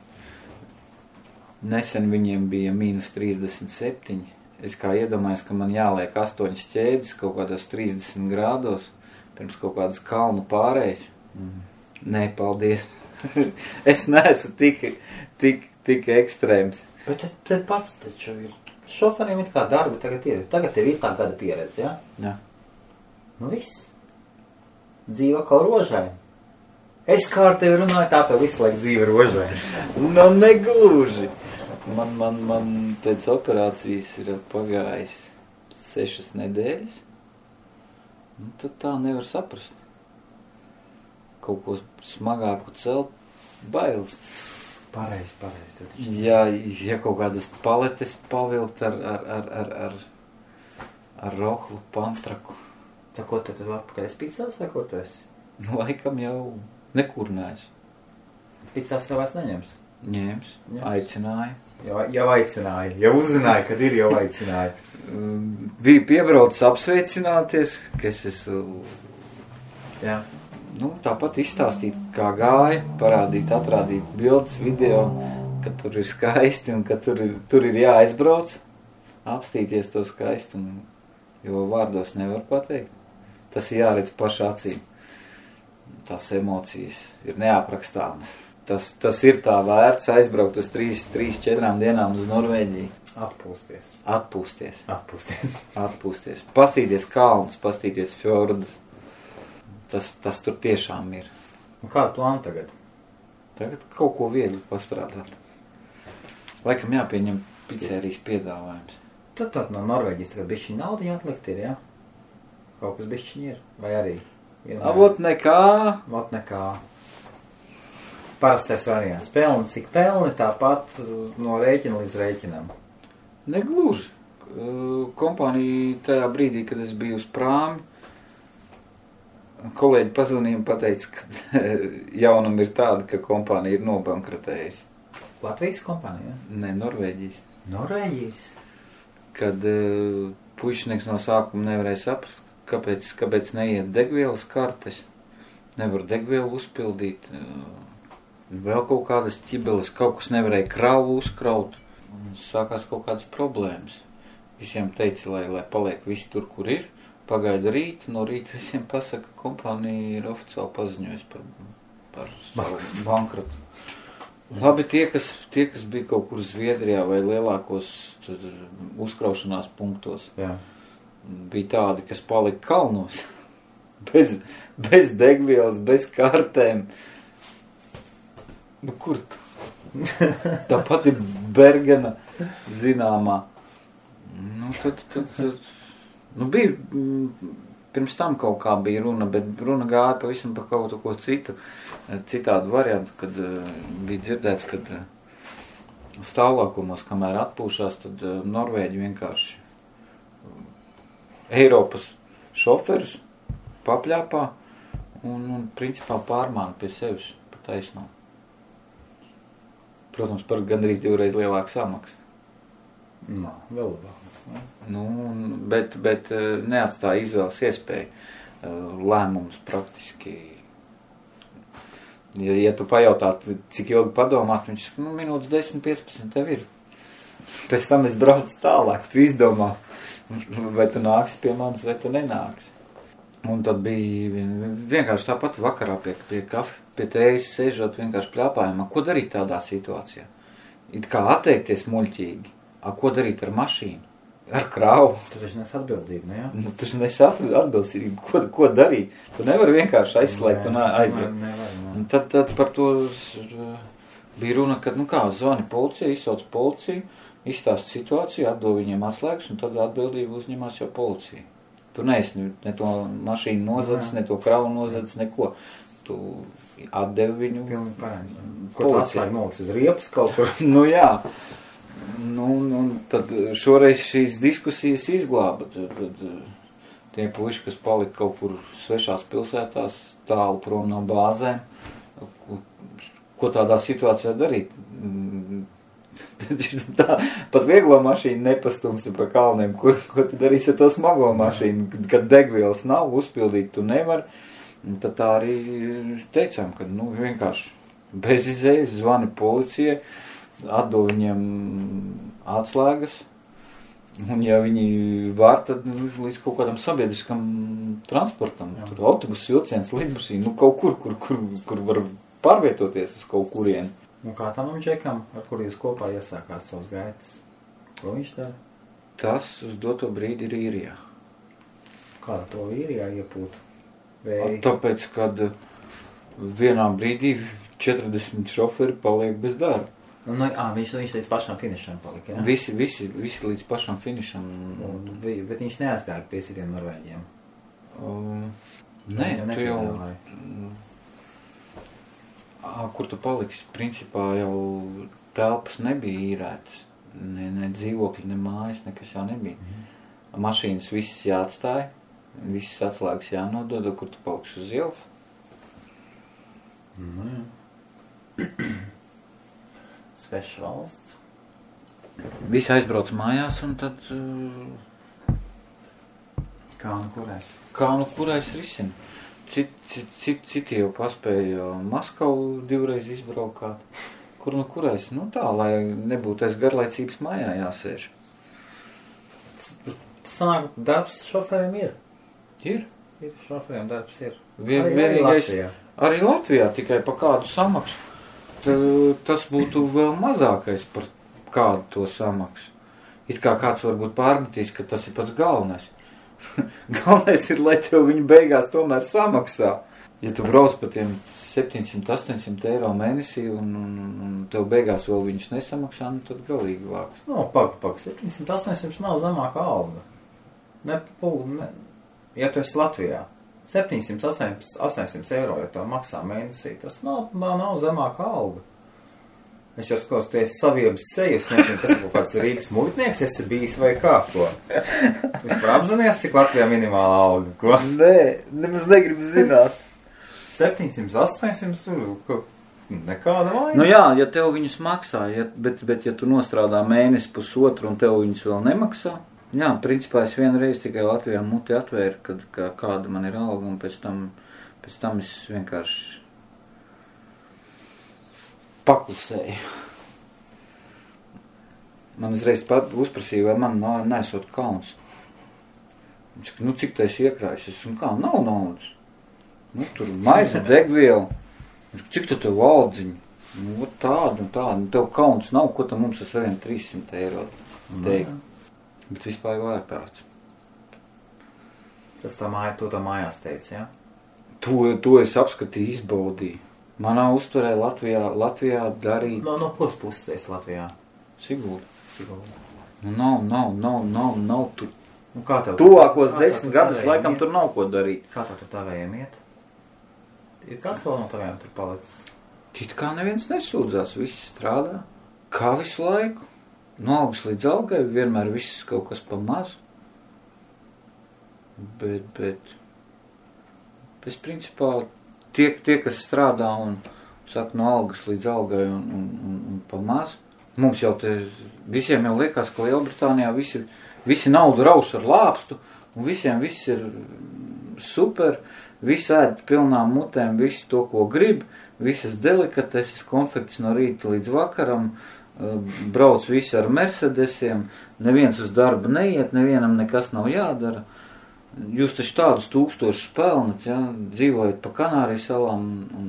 Nesen viņiem bija -37. Es kā iedomājos, ka man jāliek 8 ķēdes kaut kādos 30 grādos pirms kaut kādas kalnu pārējas. Nē, paldies. Es neesmu tik ekstrēms. Bet te pats taču ir. Šoferiem ir kā darbi tagad ir. Tagad tev ir tā gada pieredze, jā? Jā. Nu viss. Dzīva kā rožaini. Es kā ar tevi runāju, tā tev visu laiku dzīve rožaini. Nu, negluži. Man pēc operācijas ir pagājis 6 nedēļas. Nu, tad tā nevar saprast. Kaut ko smagāku celt, bailes. Pareizi. Ja kaut kādas paletes pavilkt ar rohlu pantraku. Tā ko tad atpakaļ es picās vai ko tu esi? Laikam jau nekur neesmu. Picās tev vairs neņems? Ņēms, aicināja. Jau aicināja, jau uzzināja, kad ir jau aicināja. Bija piebraucis apsveicināties, ka es esmu... Jā. Nu, tāpat izstāstīt, kā gāja, parādīt, atrādīt bildes, video, ka tur ir skaisti un ka tur ir jāaizbrauc, apstīties to skaistumu, jo vārdos nevar pateikt. Tas ir jāredz pašā acīm. Tās emocijas ir neaprakstāmas. Tas ir tā vērts aizbraukt uz 3-4 dienām uz Norvēģiju. Atpūsties. Pastīties kalnus, pastīties fjordus. Tas tur tiešām ir. Un kādu plānu tagad? Tagad kaut ko viegli pastrādāt. Laikam jāpieņem pizzerijas piedāvājums. Tad no Norvēģijas tagad bišķiņ naudiņa atlikt ir, jā? Kaut kas bišķiņ ir, vai arī? Avot nekā. Parastais variants. Pelni, cik pelni, tāpat no rēķina līdz rēķinam. Negluži. Kompānija tajā brīdī, kad es biju uz prāmi, kolēģi pazvanīja un pateica, ka jaunam ir tāda, ka kompānija ir nobankrotējusi. Latvijas kompānija? Nē, Norvēģijas. Norvēģijas? Kad puišnieks no sākuma nevarēja saprast, kāpēc neiet degvielas kartes, nevar degvielu uzpildīt, vēl kaut kādas ķibeles, kaut kas nevarēja kravu uzkraut, un sākās kaut kādas problēmas. Visiem teica, lai paliek visi tur, kur ir. Pagaida rīt, no rīta visiem pasaka, ka kompānija ir oficiāli paziņojusi par savu bankrotu. Labi, tie, kas bija kaut kur Zviedrijā vai lielākos uzkraušanās punktos, jā, bija tādi, kas palika kalnos, bez degvielas, bez kartēm. Nu, kur tu? Tāpat ir Bergena zināmā. Nu, tad bija, pirms tam kaut kā bija runa, bet runa gāja pavisam par kaut ko citu, citādu variantu, kad bija dzirdēts, kad stāvlākumos, kamēr atpūšās, tad Norvēģi vienkārši Eiropas šoferus papļāpā un principā pārmāna pie sevis pa taisnām. Protams, par gandrīz 2 reizes lielāku samaksu. Nā, vēl labāk. Nu, bet neatstāja izvēles iespēju. Lēmums praktiski. Ja tu pajautātu, cik ilgi padomāt, viņš minūtes 10-15 tev ir. Pēc tam es braucu tālāk, tu izdomā, vai tu nāksi pie manis, vai tu nenāksi. Un tad bija vienkārši tāpat vakarā pie tējas sēžot vienkārši pļāpājumā. Ko darīt tādā situācijā? It kā atteikties muļķīgi. Ko darīt ar mašīnu? ar krāvu. Tu taču nes atbildību, ne? Nu, tu nes atbildību, ko darīt. Tu nevari vienkārši aizslēgt un aizbraukt. Nevar. Tad par to bija runa, kad, zvani policija, izsauc policiju, izstāst situāciju, atdod viņiem atslēgas, un tad atbildību uzņemās jau policija. Tu neesi ne to mašīnu nozadzis, ne to kravu nozadzis, neko. Tu atdevi viņu. Pilnīgi pareizi. Ko tu atslēgi noliks uz riepas kaut kur? Jā. Tad šoreiz šīs diskusijas izglāba. Tad tie puiši, kas palika kaut kur svešās pilsētās, tālu prom no bāzēm, ko tādā situācijā darīt? Tā, pat vieglo mašīnu nepastumsi pa kalniem. Ko tu darīsi ar to smago mašīnu? Kad degvielas nav, uzpildīt tu nevari. Tad tā arī teicām, ka vienkārši bez izējas zvani policijai, atdod viņiem atslēgas, un ja viņi var, tad līdz kaut kādam sabiedriskam transportam, tur autobus, vilciens, lidmašīna, kaut kur var pārvietoties uz kaut kurien. Un kā tam džekam, ar kur jūs kopā iesākāt savus gaitas? Ko viņš dara? Tas uz doto brīdi ir īrijā. Kāda to īrijā iepūt? Tāpēc, kad vienā brīdī 40 šoferi paliek bez darba. Viņš līdz pašam finišam palika, jā? Visi līdz pašam finišam. Bet viņš neaizgāja pie citiem norvēģiem? Nē, tu jau... Kur tu paliksi? Principā jau telpas nebija īrētas. Ne dzīvokļi, ne mājas, nekas jau nebija. Mašīnas visas jāatstāja, visas atslēgas jānodod, kur tu paliksi uz ielas. Sveša valsts. Visi aizbrauc mājās un tad... Kā nu kurais risina. Citi jau paspēja Maskavu divreiz izbraukāt. Kur nu kurais? Tā, lai nebūtu aiz garlaicības mājā jāsēž. Sanāk, darbs šoferiem ir? Ir. Šoferiem darbs ir. Arī Latvijā tikai pa kādu samaksu. Tas būtu vēl mazākais par kādu to samaksu. It kā kāds varbūt pārmetīs, ka tas ir pats galvenais. Galvenais ir, lai tev viņi beigās tomēr samaksā. Ja tu brauc pa tiem 700-800 eiro mēnesī un tev beigās vēl viņus nesamaksā, tad galīgi vāks. Pak, 700-800 nav zemāka alga. Ja tu esi Latvijā, 700-800 eiro, ja tev maksā mēnesī, tas nav zemāka alga. Es jau skatos, tu esi saviebas sejas, nezinu, kas ir kaut kāds Rīgas muitnieks, esi bijis vai kā, ko? Vispār apzinies, cik Latvijā minimāla alga, ko? Nē, nemaz negribu zināt. 700-800, nekāda vaina. Jā, ja tev viņus maksā, bet ja tu nostrādā mēnesi pusotru un tev viņus vēl nemaksā, principā es vienreiz tikai Latvijā muti atvēru, kad kāda man ir alga, un pēc tam es vienkārši paklusēju. Man uzreiz uzprasīja, vai man nesot kauns. Viņš saka, cik tu esi iekrājis? Es saku, nav naudas. Tur maize, degviela. Viņš saka, cik tu tev valdziņu? Tādu un tādu. Tev kauns nav, ko tam mums ar saviem 300 eiro teikt. Bet vispār jau ārprāts. Tas to mājās teica, jā? To es apskatīju, izbaudīju. Manā uztverē Latvijā darīt... No kuras puses tu esi Latvijā? Sigulda. Nav tur. Tuvākos 10 gadus laikam tur nav ko darīt. Kā tev tur tavējiem iet? Ir kāds vēl no tavējiem tur palicis? It kā neviens nesūdzās, visi strādā. Kā visu laiku. No algas līdz algai, vienmēr viss kaut kas pa mazu. Bet es principā tie, kas strādā un saka no algas līdz algai un pa mazu, mums jau visiem jau liekas, ka Lielbritānijā visi naudu rauš ar lāpstu, un visiem viss ir super, visi ēd pilnām mutēm, visi to, ko grib, visas delikateses, konfekts no rīta līdz vakaram, brauc visi ar Mercedesiem, neviens uz darbu neiet, nevienam nekas nav jādara. Jūs taču tādus 1000 pelnat, dzīvojat pa Kanārijas salām un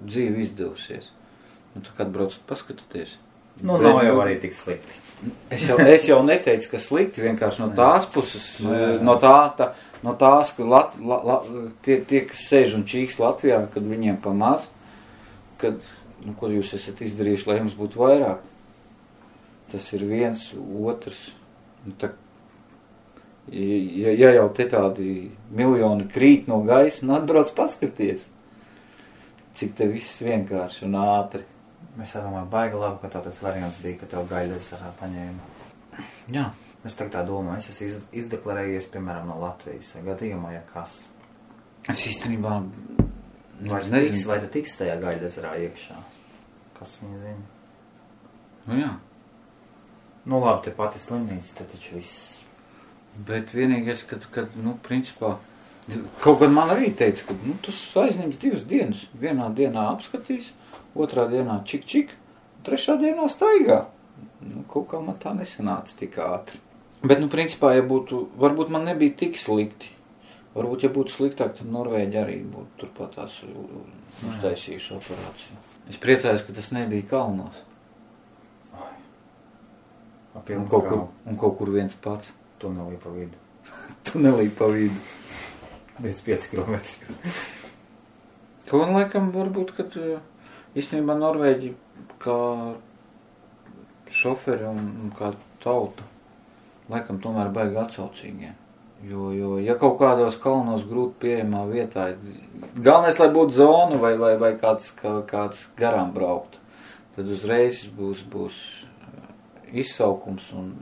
dzīve izdevusies. Tu kad braucat paskatoties. Nav jau arī tik slikti. Es jau neteicu, ka slikti, vienkārši no tās puses, no tās, ka tie, kas sēž un čīks Latvijā, kad viņiem pamaz, kad, ko jūs esat izdarījuši, lai jums būtu vairāk. Tas ir viens, otrs. Ja jau te tādi miljoni krīt no gaisa, atbrauc paskaties, cik te viss vienkārši un ātri. Es domāju, baigi labi, ka tev tas variants bija, ka tev Gaļdezerā paņēma. Jā. Es tā domāju, es esmu izdeklarējies, piemēram, no Latvijas, vai gadījumā, ja kas. Es īstenībā Vai tu tiks tajā Gaļdezerā iekšā? Kas viņa zina? Nu jā. Nu labi, te pati slimnīca, te taču viss. Bet vienīgais, kad principā, kaut gan man arī teica, ka, tu aizņems 2 dienas. Vienā dienā apskatīs, otrā dienā čik, trešā dienā staigā. Kaut kā man tā nesanāca tik ātri. Bet, principā, ja būtu, varbūt man nebija tik slikti. Varbūt, ja būtu sliktāk, tad Norvēģi arī būtu turpat tās uztaisījuši operāciju. Es priecājos, ka tas nebija kalnos. Un kaut kur viens pats. Tunelī pa vidu. Tunelī pa vidu. 5 kilometri. Ko un laikam varbūt, kad īstenībā Norvēģi kā šoferi un kā tauta, laikam tomēr baigi atsaucīgie. Jo, ja kaut kādos kalnos grūti pieejamā vietā, galvenais, lai būtu zona vai kāds garām braukt, tad uzreiz būs izsaukums un,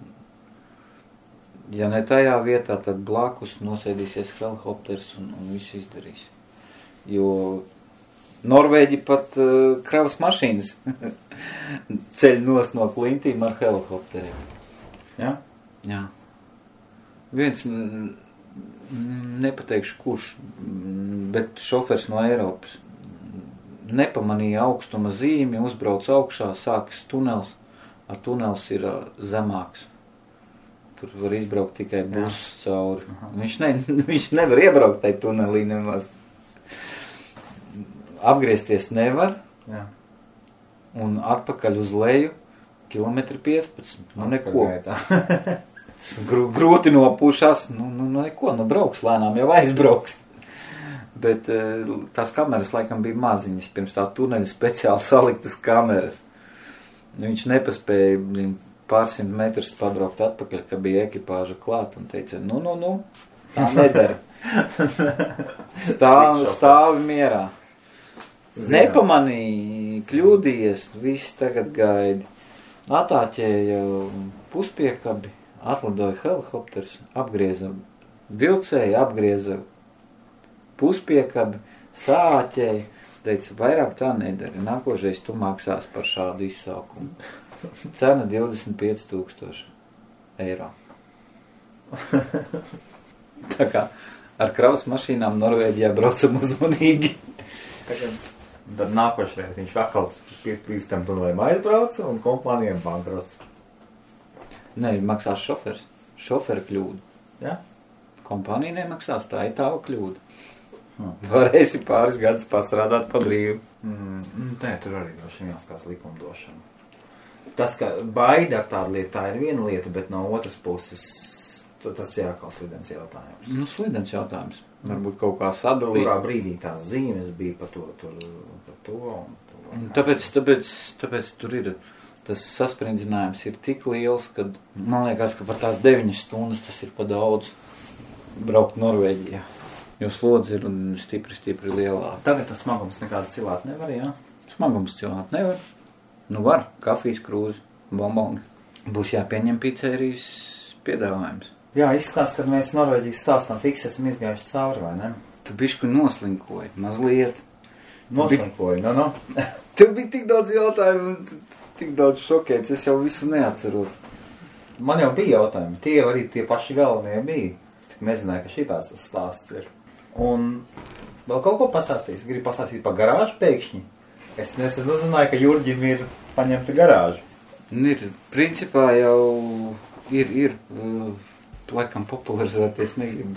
ja ne tajā vietā, tad blakus nosēdīsies helikopters un viss izdarīs. Jo Norvēģi pat kravas mašīnas ceļ nos no klintīm ar helikopteriem. Ja? Jā. Viens, nepateikšu kurš, bet šofers no Eiropas nepamanīja augstuma zīmi, uzbrauc augšā, sākas tunels, a tunels ir zemāks. Tur var izbraukt tikai buss cauri. Viņš nevar iebraukt tai tunelī nemaz. Apgriezties nevar. Jā. Un atpakaļ uz leju 15 km. Neko. Grūti nopūšās, neko, brauks lēnām, jau aizbrauks. Bet tās kameras laikam bija maziņas, pirms tā tuneļa speciāli saliktas kameras. Viņš nepaspēja pārsimt metrus pabraukt atpakaļ, ka bija ekipāža klāt un teica, tā nedara. Stāvi mierā. Nepamanīja, kļūdījies, viss tagad gaidi. Atāķēja puspiekabi, atlidoja helikopters, apgrieza vilcēju, apgrieza puspiekabi, sāķēja, teica, vairāk tā nedara, nākošais tu maksās par šādu izsaukumu. Cena 25,000 eiro. Tā kā ar kravas mašīnām Norvēģijā braucam uzmanīgi. Tad nākošreiz viņš vakal līdz tam tunelēm aizbrauca un kompānijām bankrots. Nē, maksās šofers. Šofera kļūda. Ja? Kompānija nemaksās, tā ir tava kļūda. Varēsi pāris gadus pastrādāt pa brīvu. Nē, tur arī droši jāskās likumdošana. Tas, ka baida ar tādu lietu, tā ir viena lieta, bet no otras puses tas ir atkal slidens jautājums. Slidens jautājums. Varbūt kaut kā sadalīt. Kurā brīdī tās zīmes bija par to un to. Tāpēc tur ir, tas sasprindzinājums ir tik liels, ka man liekas, ka par tās 9 stundas tas ir pa daudz braukt Norvēģijā. Jo slodzi ir stipri lielāk. Tagad tas smagums nekādu cilāt nevar, jā? Smagums cilāt nevar. Var, kafijas krūzi, bomboni. Būs jāpieņem pizzerijas piedāvājums. Jā, izskatās, ka mēs Norvēģijas stāstām fiks esam izgājuši cauri, vai ne? Tu bišku noslinkoji, mazliet. Noslinkoji, Tev bija tik daudz jautājumu, tik daudz šokēts, es jau visu neatceros. Man jau bija jautājumi, tie arī tie paši galvenie bija. Es tik nezināju, ka šitās stāsts ir. Un vēl kaut ko pastāstīs, gribu pastāstīt par garāžu pēkšņi. Es nesen uzzināju, ka Jurģim ir paņemta garāža. Ir, principā jau ir laikam popularizēties negribu.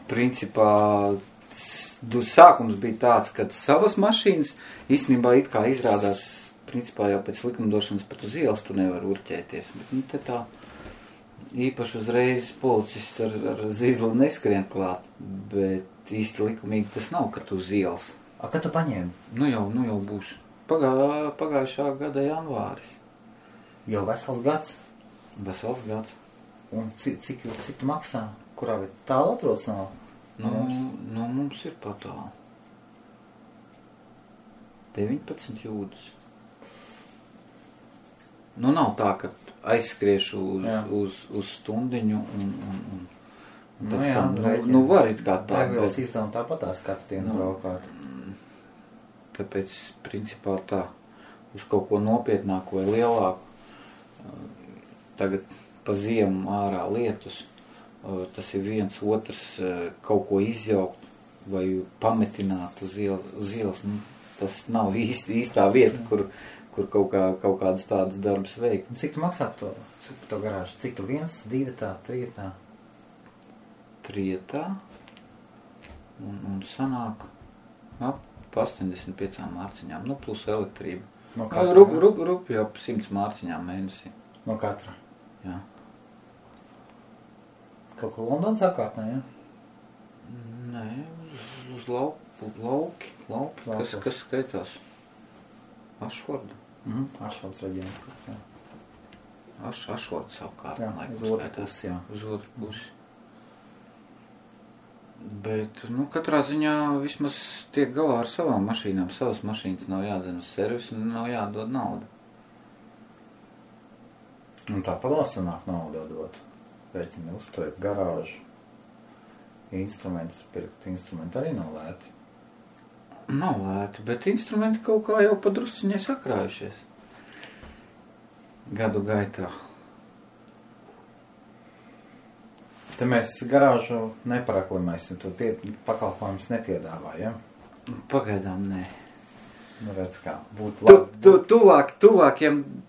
Principā sākums bija tāds, ka savas mašīnas īstenībā it kā izrādās principā jau pēc likumdošanas pat uz ielas tu nevar urķēties. Bet, nu, te tā īpaši uzreiz policists ar zīzli neskrien klāt, bet īsti likumīgi tas nav, ka tu uz ielas. A, kad tu paņēmi? Nu jau būs. Pagājušā gada janvāris. Jau vesels gads? Vesels gads. Un cik tu maksā? Kurā vietā tālu atrodas nav? Mums ir pat tālu. 19 jūdzes. Nu, nav tā, ka aizskriešu uz stundiņu un pēc tam, var it kā tā. Degvielas izdevumi tāpatās katru dienu braukāt. Tāpēc, principā tā, uz kaut ko nopietnāku vai lielāku, tagad pa ziemu ārā lietus, tas ir viens otrs kaut ko izjaukt vai pametināt uz ielas, nu, tas nav īstā vieta, kur kaut kādas tādas darbas veikt. Cik tu maksā to garāžu? Cik tu 1, 2, 3? 3 un sanāk ap 85 mārciņām, nu plus elektrība. No katra? Rupi jau 100 mārciņām mēnesī. No katra? Jā. Kaut ko Londonas apkārtnē, ja? Nē, uz lauki, kas skaitās. Ašforda. Ašfords reģions. Ašforda savukārt. Jā, uz otru pusi, jā. Uz otru pusi. Bet, nu, katrā ziņā vismaz tiek galā ar savām mašīnām. Savas mašīnas nav jādzen uz servisu un nav jādod naudu. Un tā palassanāk naudu dot. Rēķini uzturēt garāžu. Instrumentus pirkt. Instrumenti arī nav lēti. Nav lēti, bet instrumenti kaut kā jau padrusciņai sakrājušies. Gadu gaitā. Te mēs garāžu neparaklimēsim, tu pakalpojumus nepiedāvā, ja? Pagaidām nē. Nu, redz kā, būtu labi.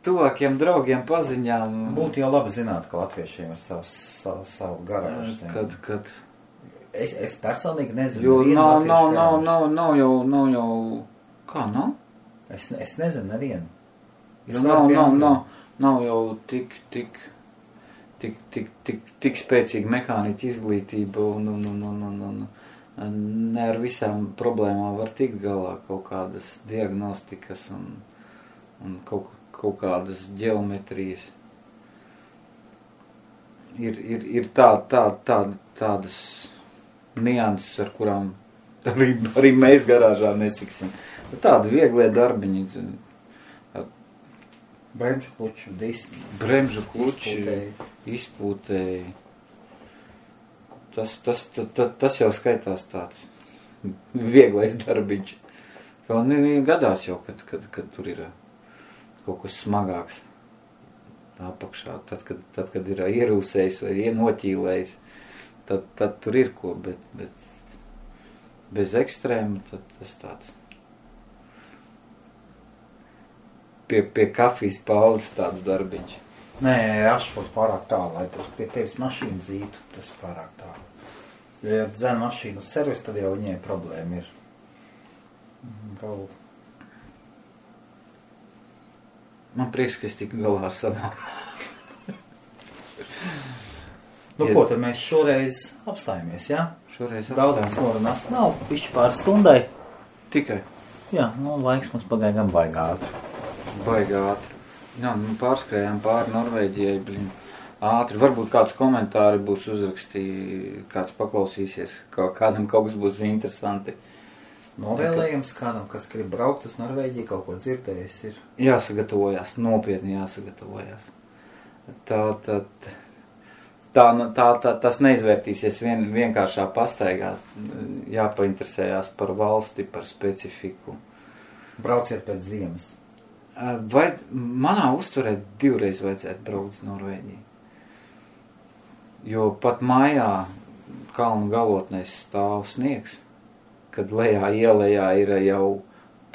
Tuvākiem draugiem paziņām. Būtu jau labi zināt, ka latviešiem ir savu garāžu. Kad? Es personīgi nezinu. Jo nav jau. Kā nav? Es nezinu nevienu. Nav jau tik spēcīga mehāniķa izglītība un ne ar visām problēmām var tikt galā, kaut kādas diagnostikas un kaut kādas ģeometrijas. Ir tādas nianses, ar kurām arī mēs garāžā nesiksim. Tādi vieglie darbiņi. Bremžu kluču, diski. Bremžu kluči, izpūtēji. Tas jau skaitās tāds vieglais darbiņš. Un gadās jau, kad tur ir kaut kas smagāks apakšā. Tad, kad ir ierūsējis vai noķīlējis, tad tur ir ko, bet bez ekstrēma, tad tas tāds. Pie kafijas paudzes tāds darbiņš. Nē, Ašfords pārāk tālu, lai tas pie tevis mašīnu dzītu, tas pārāk tālu. Ja dzen mašīnu uz servisu, tad jau viņai problēma ir. Vēl. Man prieks, ka es tiku galā ar savām. Nu, ko tad mēs šoreiz apstājamies, jā? Šoreiz daudz mums norunās nav, pišķi pār stundai. Tikai? Jā, nu, laiks mums pagāja gan baigā ātri. Baigā ātri. Jā, pārskrējām pāri Norvēģijai, ātri. Varbūt kāds komentāri būs uzrakstīja, kāds paklausīsies, kādam kaut kas būs interesanti. Novēlējums kādam, kas grib braukt uz Norvēģiju, kaut ko dzirdējis ir. Jāsagatavojās, nopietni jāsagatavojās. Tas neizvērtīsies vienkāršā pastaigā. Jāpainteresējās par valsti, par specifiku. Brauciet pēc ziemas. Vai manā uzturē 2 reizes vajadzētu braukt uz Norvēģiju? Jo pat mājā kalnu galotnēs stāv sniegs, kad lejā ielējā ir jau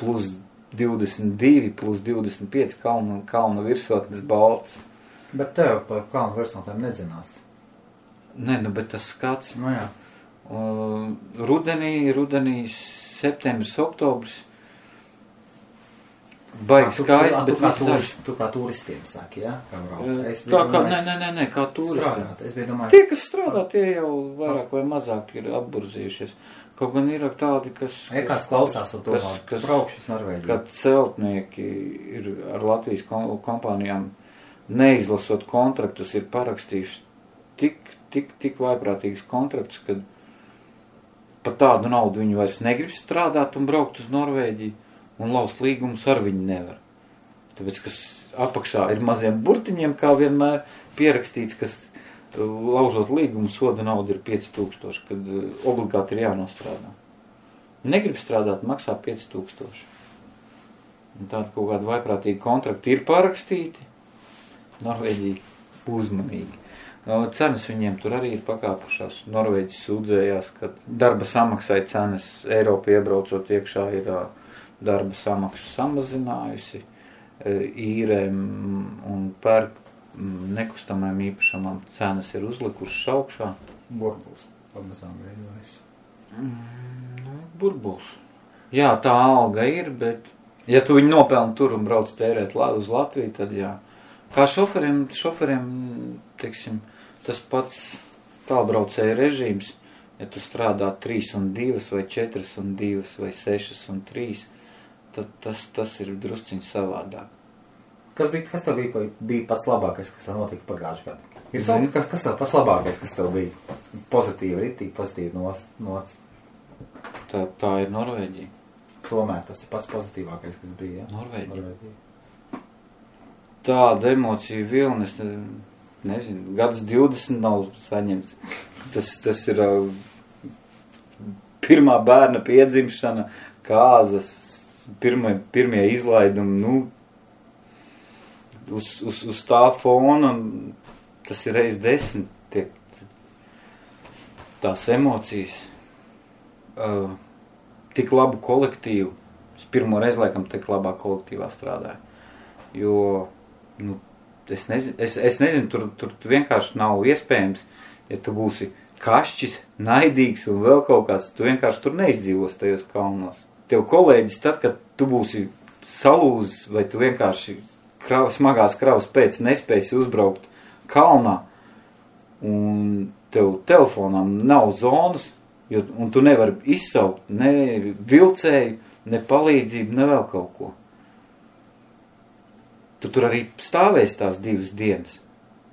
plus 22, plus 25 kalnu virsotnes balts. Bet tev par kalnu virsotnēm nedzinās. Nē, bet tas skats. Nu jā. Rudenī, septembris, oktobris. baigi skaisti. Tu kā turistiem saki, ja? Nē, kā turistiem. Es biju domājis. Tie, kas strādā, tie jau vairāk vai mazāk ir apburzījušies. Kaut gan ir tādi, kas klausās un braukšas Norvēģijā. Kad celtnieki ir ar Latvijas kompānijām neizlasot kontraktus, ir parakstījuši tik vaiprātīgus kontraktus, kad par tādu naudu viņi vairs negrib strādāt un braukt uz Norvēģiju. Un laust līgumus ar viņu nevar. Tāpēc, kas apakšā ir maziem burtiņiem, kā vienmēr pierakstīts, kas laužot līgumu soda nauda ir 5000, kad obligāti ir jānostrādā. Negrib strādāt, maksā 5000. Un tāda kaut kāda vaiprātīga kontrakti ir parakstīti. Norvēģija uzmanīgi. Cenas viņiem tur arī ir pakāpušās. Norvēģis sūdzējās, ka darba samaksai cenas Eiropa iebraucot iekšā ir darba samaksu samazinājusi, īrēm un pērk nekustamajām īpašamām cenas ir uzlikušas augšā. Burbuls pamazām veidojas. Burbuls. Jā, tā alga ir, bet ja tu viņu nopelni tur un brauc tērēt uz Latviju, tad jā. Kā šoferiem, teiksim, tas pats tālbraucēja režīms, ja tu strādā 3 un 2 vai 4 un 2 vai 6 un 3, tad tas ir drusciņš savādāk. Kas tev bija pats labākais, kas tev notika pagājušajā gadā? Kas tev pats labākais, kas tev bija pozitīvi nots? Tā ir Norvēģija. Tomēr tas ir pats pozitīvākais, kas bija, ja? Norvēģija. Tāda emocija vilna, es nezinu, gadus 20 nav saņemts. Tas ir pirmā bērna piedzimšana, kāzas, pirmie izlaidumi, uz tā fona, tas ir reiz 10, tās emocijas, tik labu kolektīvu, es pirmo reizi laikam tik labā kolektīvā strādāju, jo, es nezinu, tur vienkārši nav iespējams, ja tu būsi kašķis, naidīgs un vēl kaut kāds, tu vienkārši tur neizdzīvos tajos kalnos. Tev kolēģis tad, kad tu būsi salūzis vai tu vienkārši smagās kravas pēc nespēsi uzbraukt kalnā un tev telefonām nav zonas, un tu nevari izsaukt ne vilcēju, ne palīdzību, ne vēl kaut ko. Tu tur arī stāvēsi tās 2 dienas.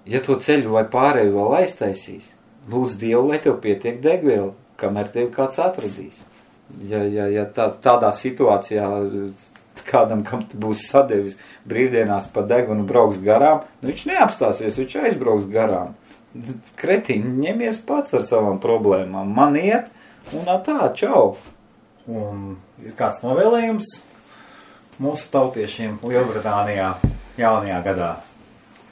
Ja to ceļu vai pārēju vēl aiztaisīs, lūdz Dievu, lai tev pietiek degviela, kamēr tevi kāds atradīs. Ja tādā situācijā kādam, kam tu būsi sadevis brīvdienās pa degunu brauks garām, viņš neapstāsies, viņš aizbrauks garām. Kretiņi, ņemies pats ar savām problēmām. Man iet, un tā, čau. Un ir kāds novēlējums mūsu tautiešiem Lielbritānijā jaunajā gadā?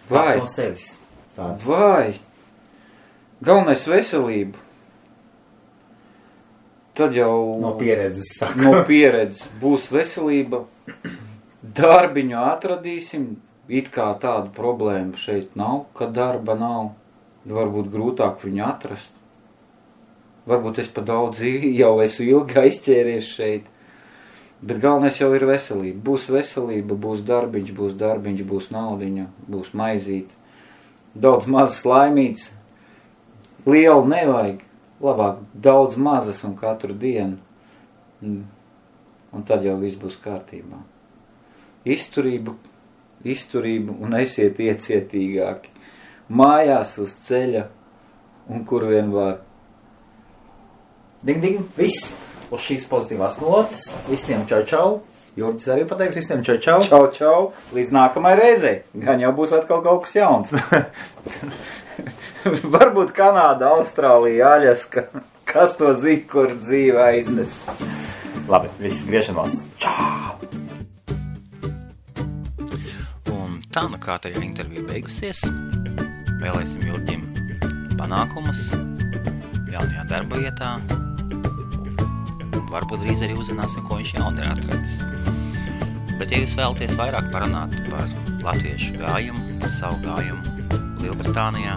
Vai? No sevis. Tāds. Vai? Galvenais veselību. Tad jau no pieredzes saka. No pieredzes būs veselība. Darbiņu atradīsim. It kā tādu problēmu šeit nav, ka darba nav. Varbūt grūtāk viņu atrast. Varbūt es pa daudz jau esmu ilgi aizķēries šeit. Bet galvenais jau ir veselība. Būs veselība, būs darbiņš, būs naudiņa, būs maizīte. Daudz mazas laimītes. Liela nevajag. Labāk daudz mazas un katru dienu. Un tad jau viss būs kārtībā. Izturību un esiet iecietīgāki. Mājās uz ceļa un kur vien var. Ding, viss uz šīs pozitīvās notas. Visiem čau. Jurģis arī pateiks visiem čau. Čau. Līdz nākamai reizei. Gan jau būs atkal kaut kas jauns. Varbūt Kanāda, Austrālija, Aļaska. Kas to zina, kur dzīve aiznes? Labi, visi griešanos. Čau! Un tā nu kārtējā intervija beigusies. Vēlēsim Jurģim panākumus jaunajā darba vietā. Varbūt drīz arī uzzināsim, ko viņš jauni ir atradis. Bet ja jūs vēlaties vairāk parunāt par latviešu gājumu, savu gājumu Lielbritānijā,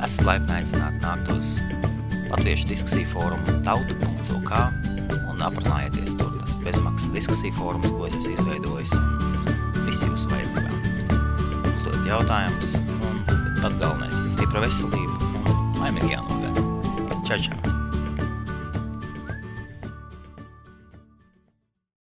esat laipni aicināti nākt uz Latviešu diskusiju fórumu tauta.lk un aprunājieties tur. Tas bezmaksas diskusiju fórums, ko es esmu izveidojis, un visi jūsu vajadzībām. Uzdot jautājumus, un pat galvenais ir stipra veselība un laimīgi jānogada. Čau, čau!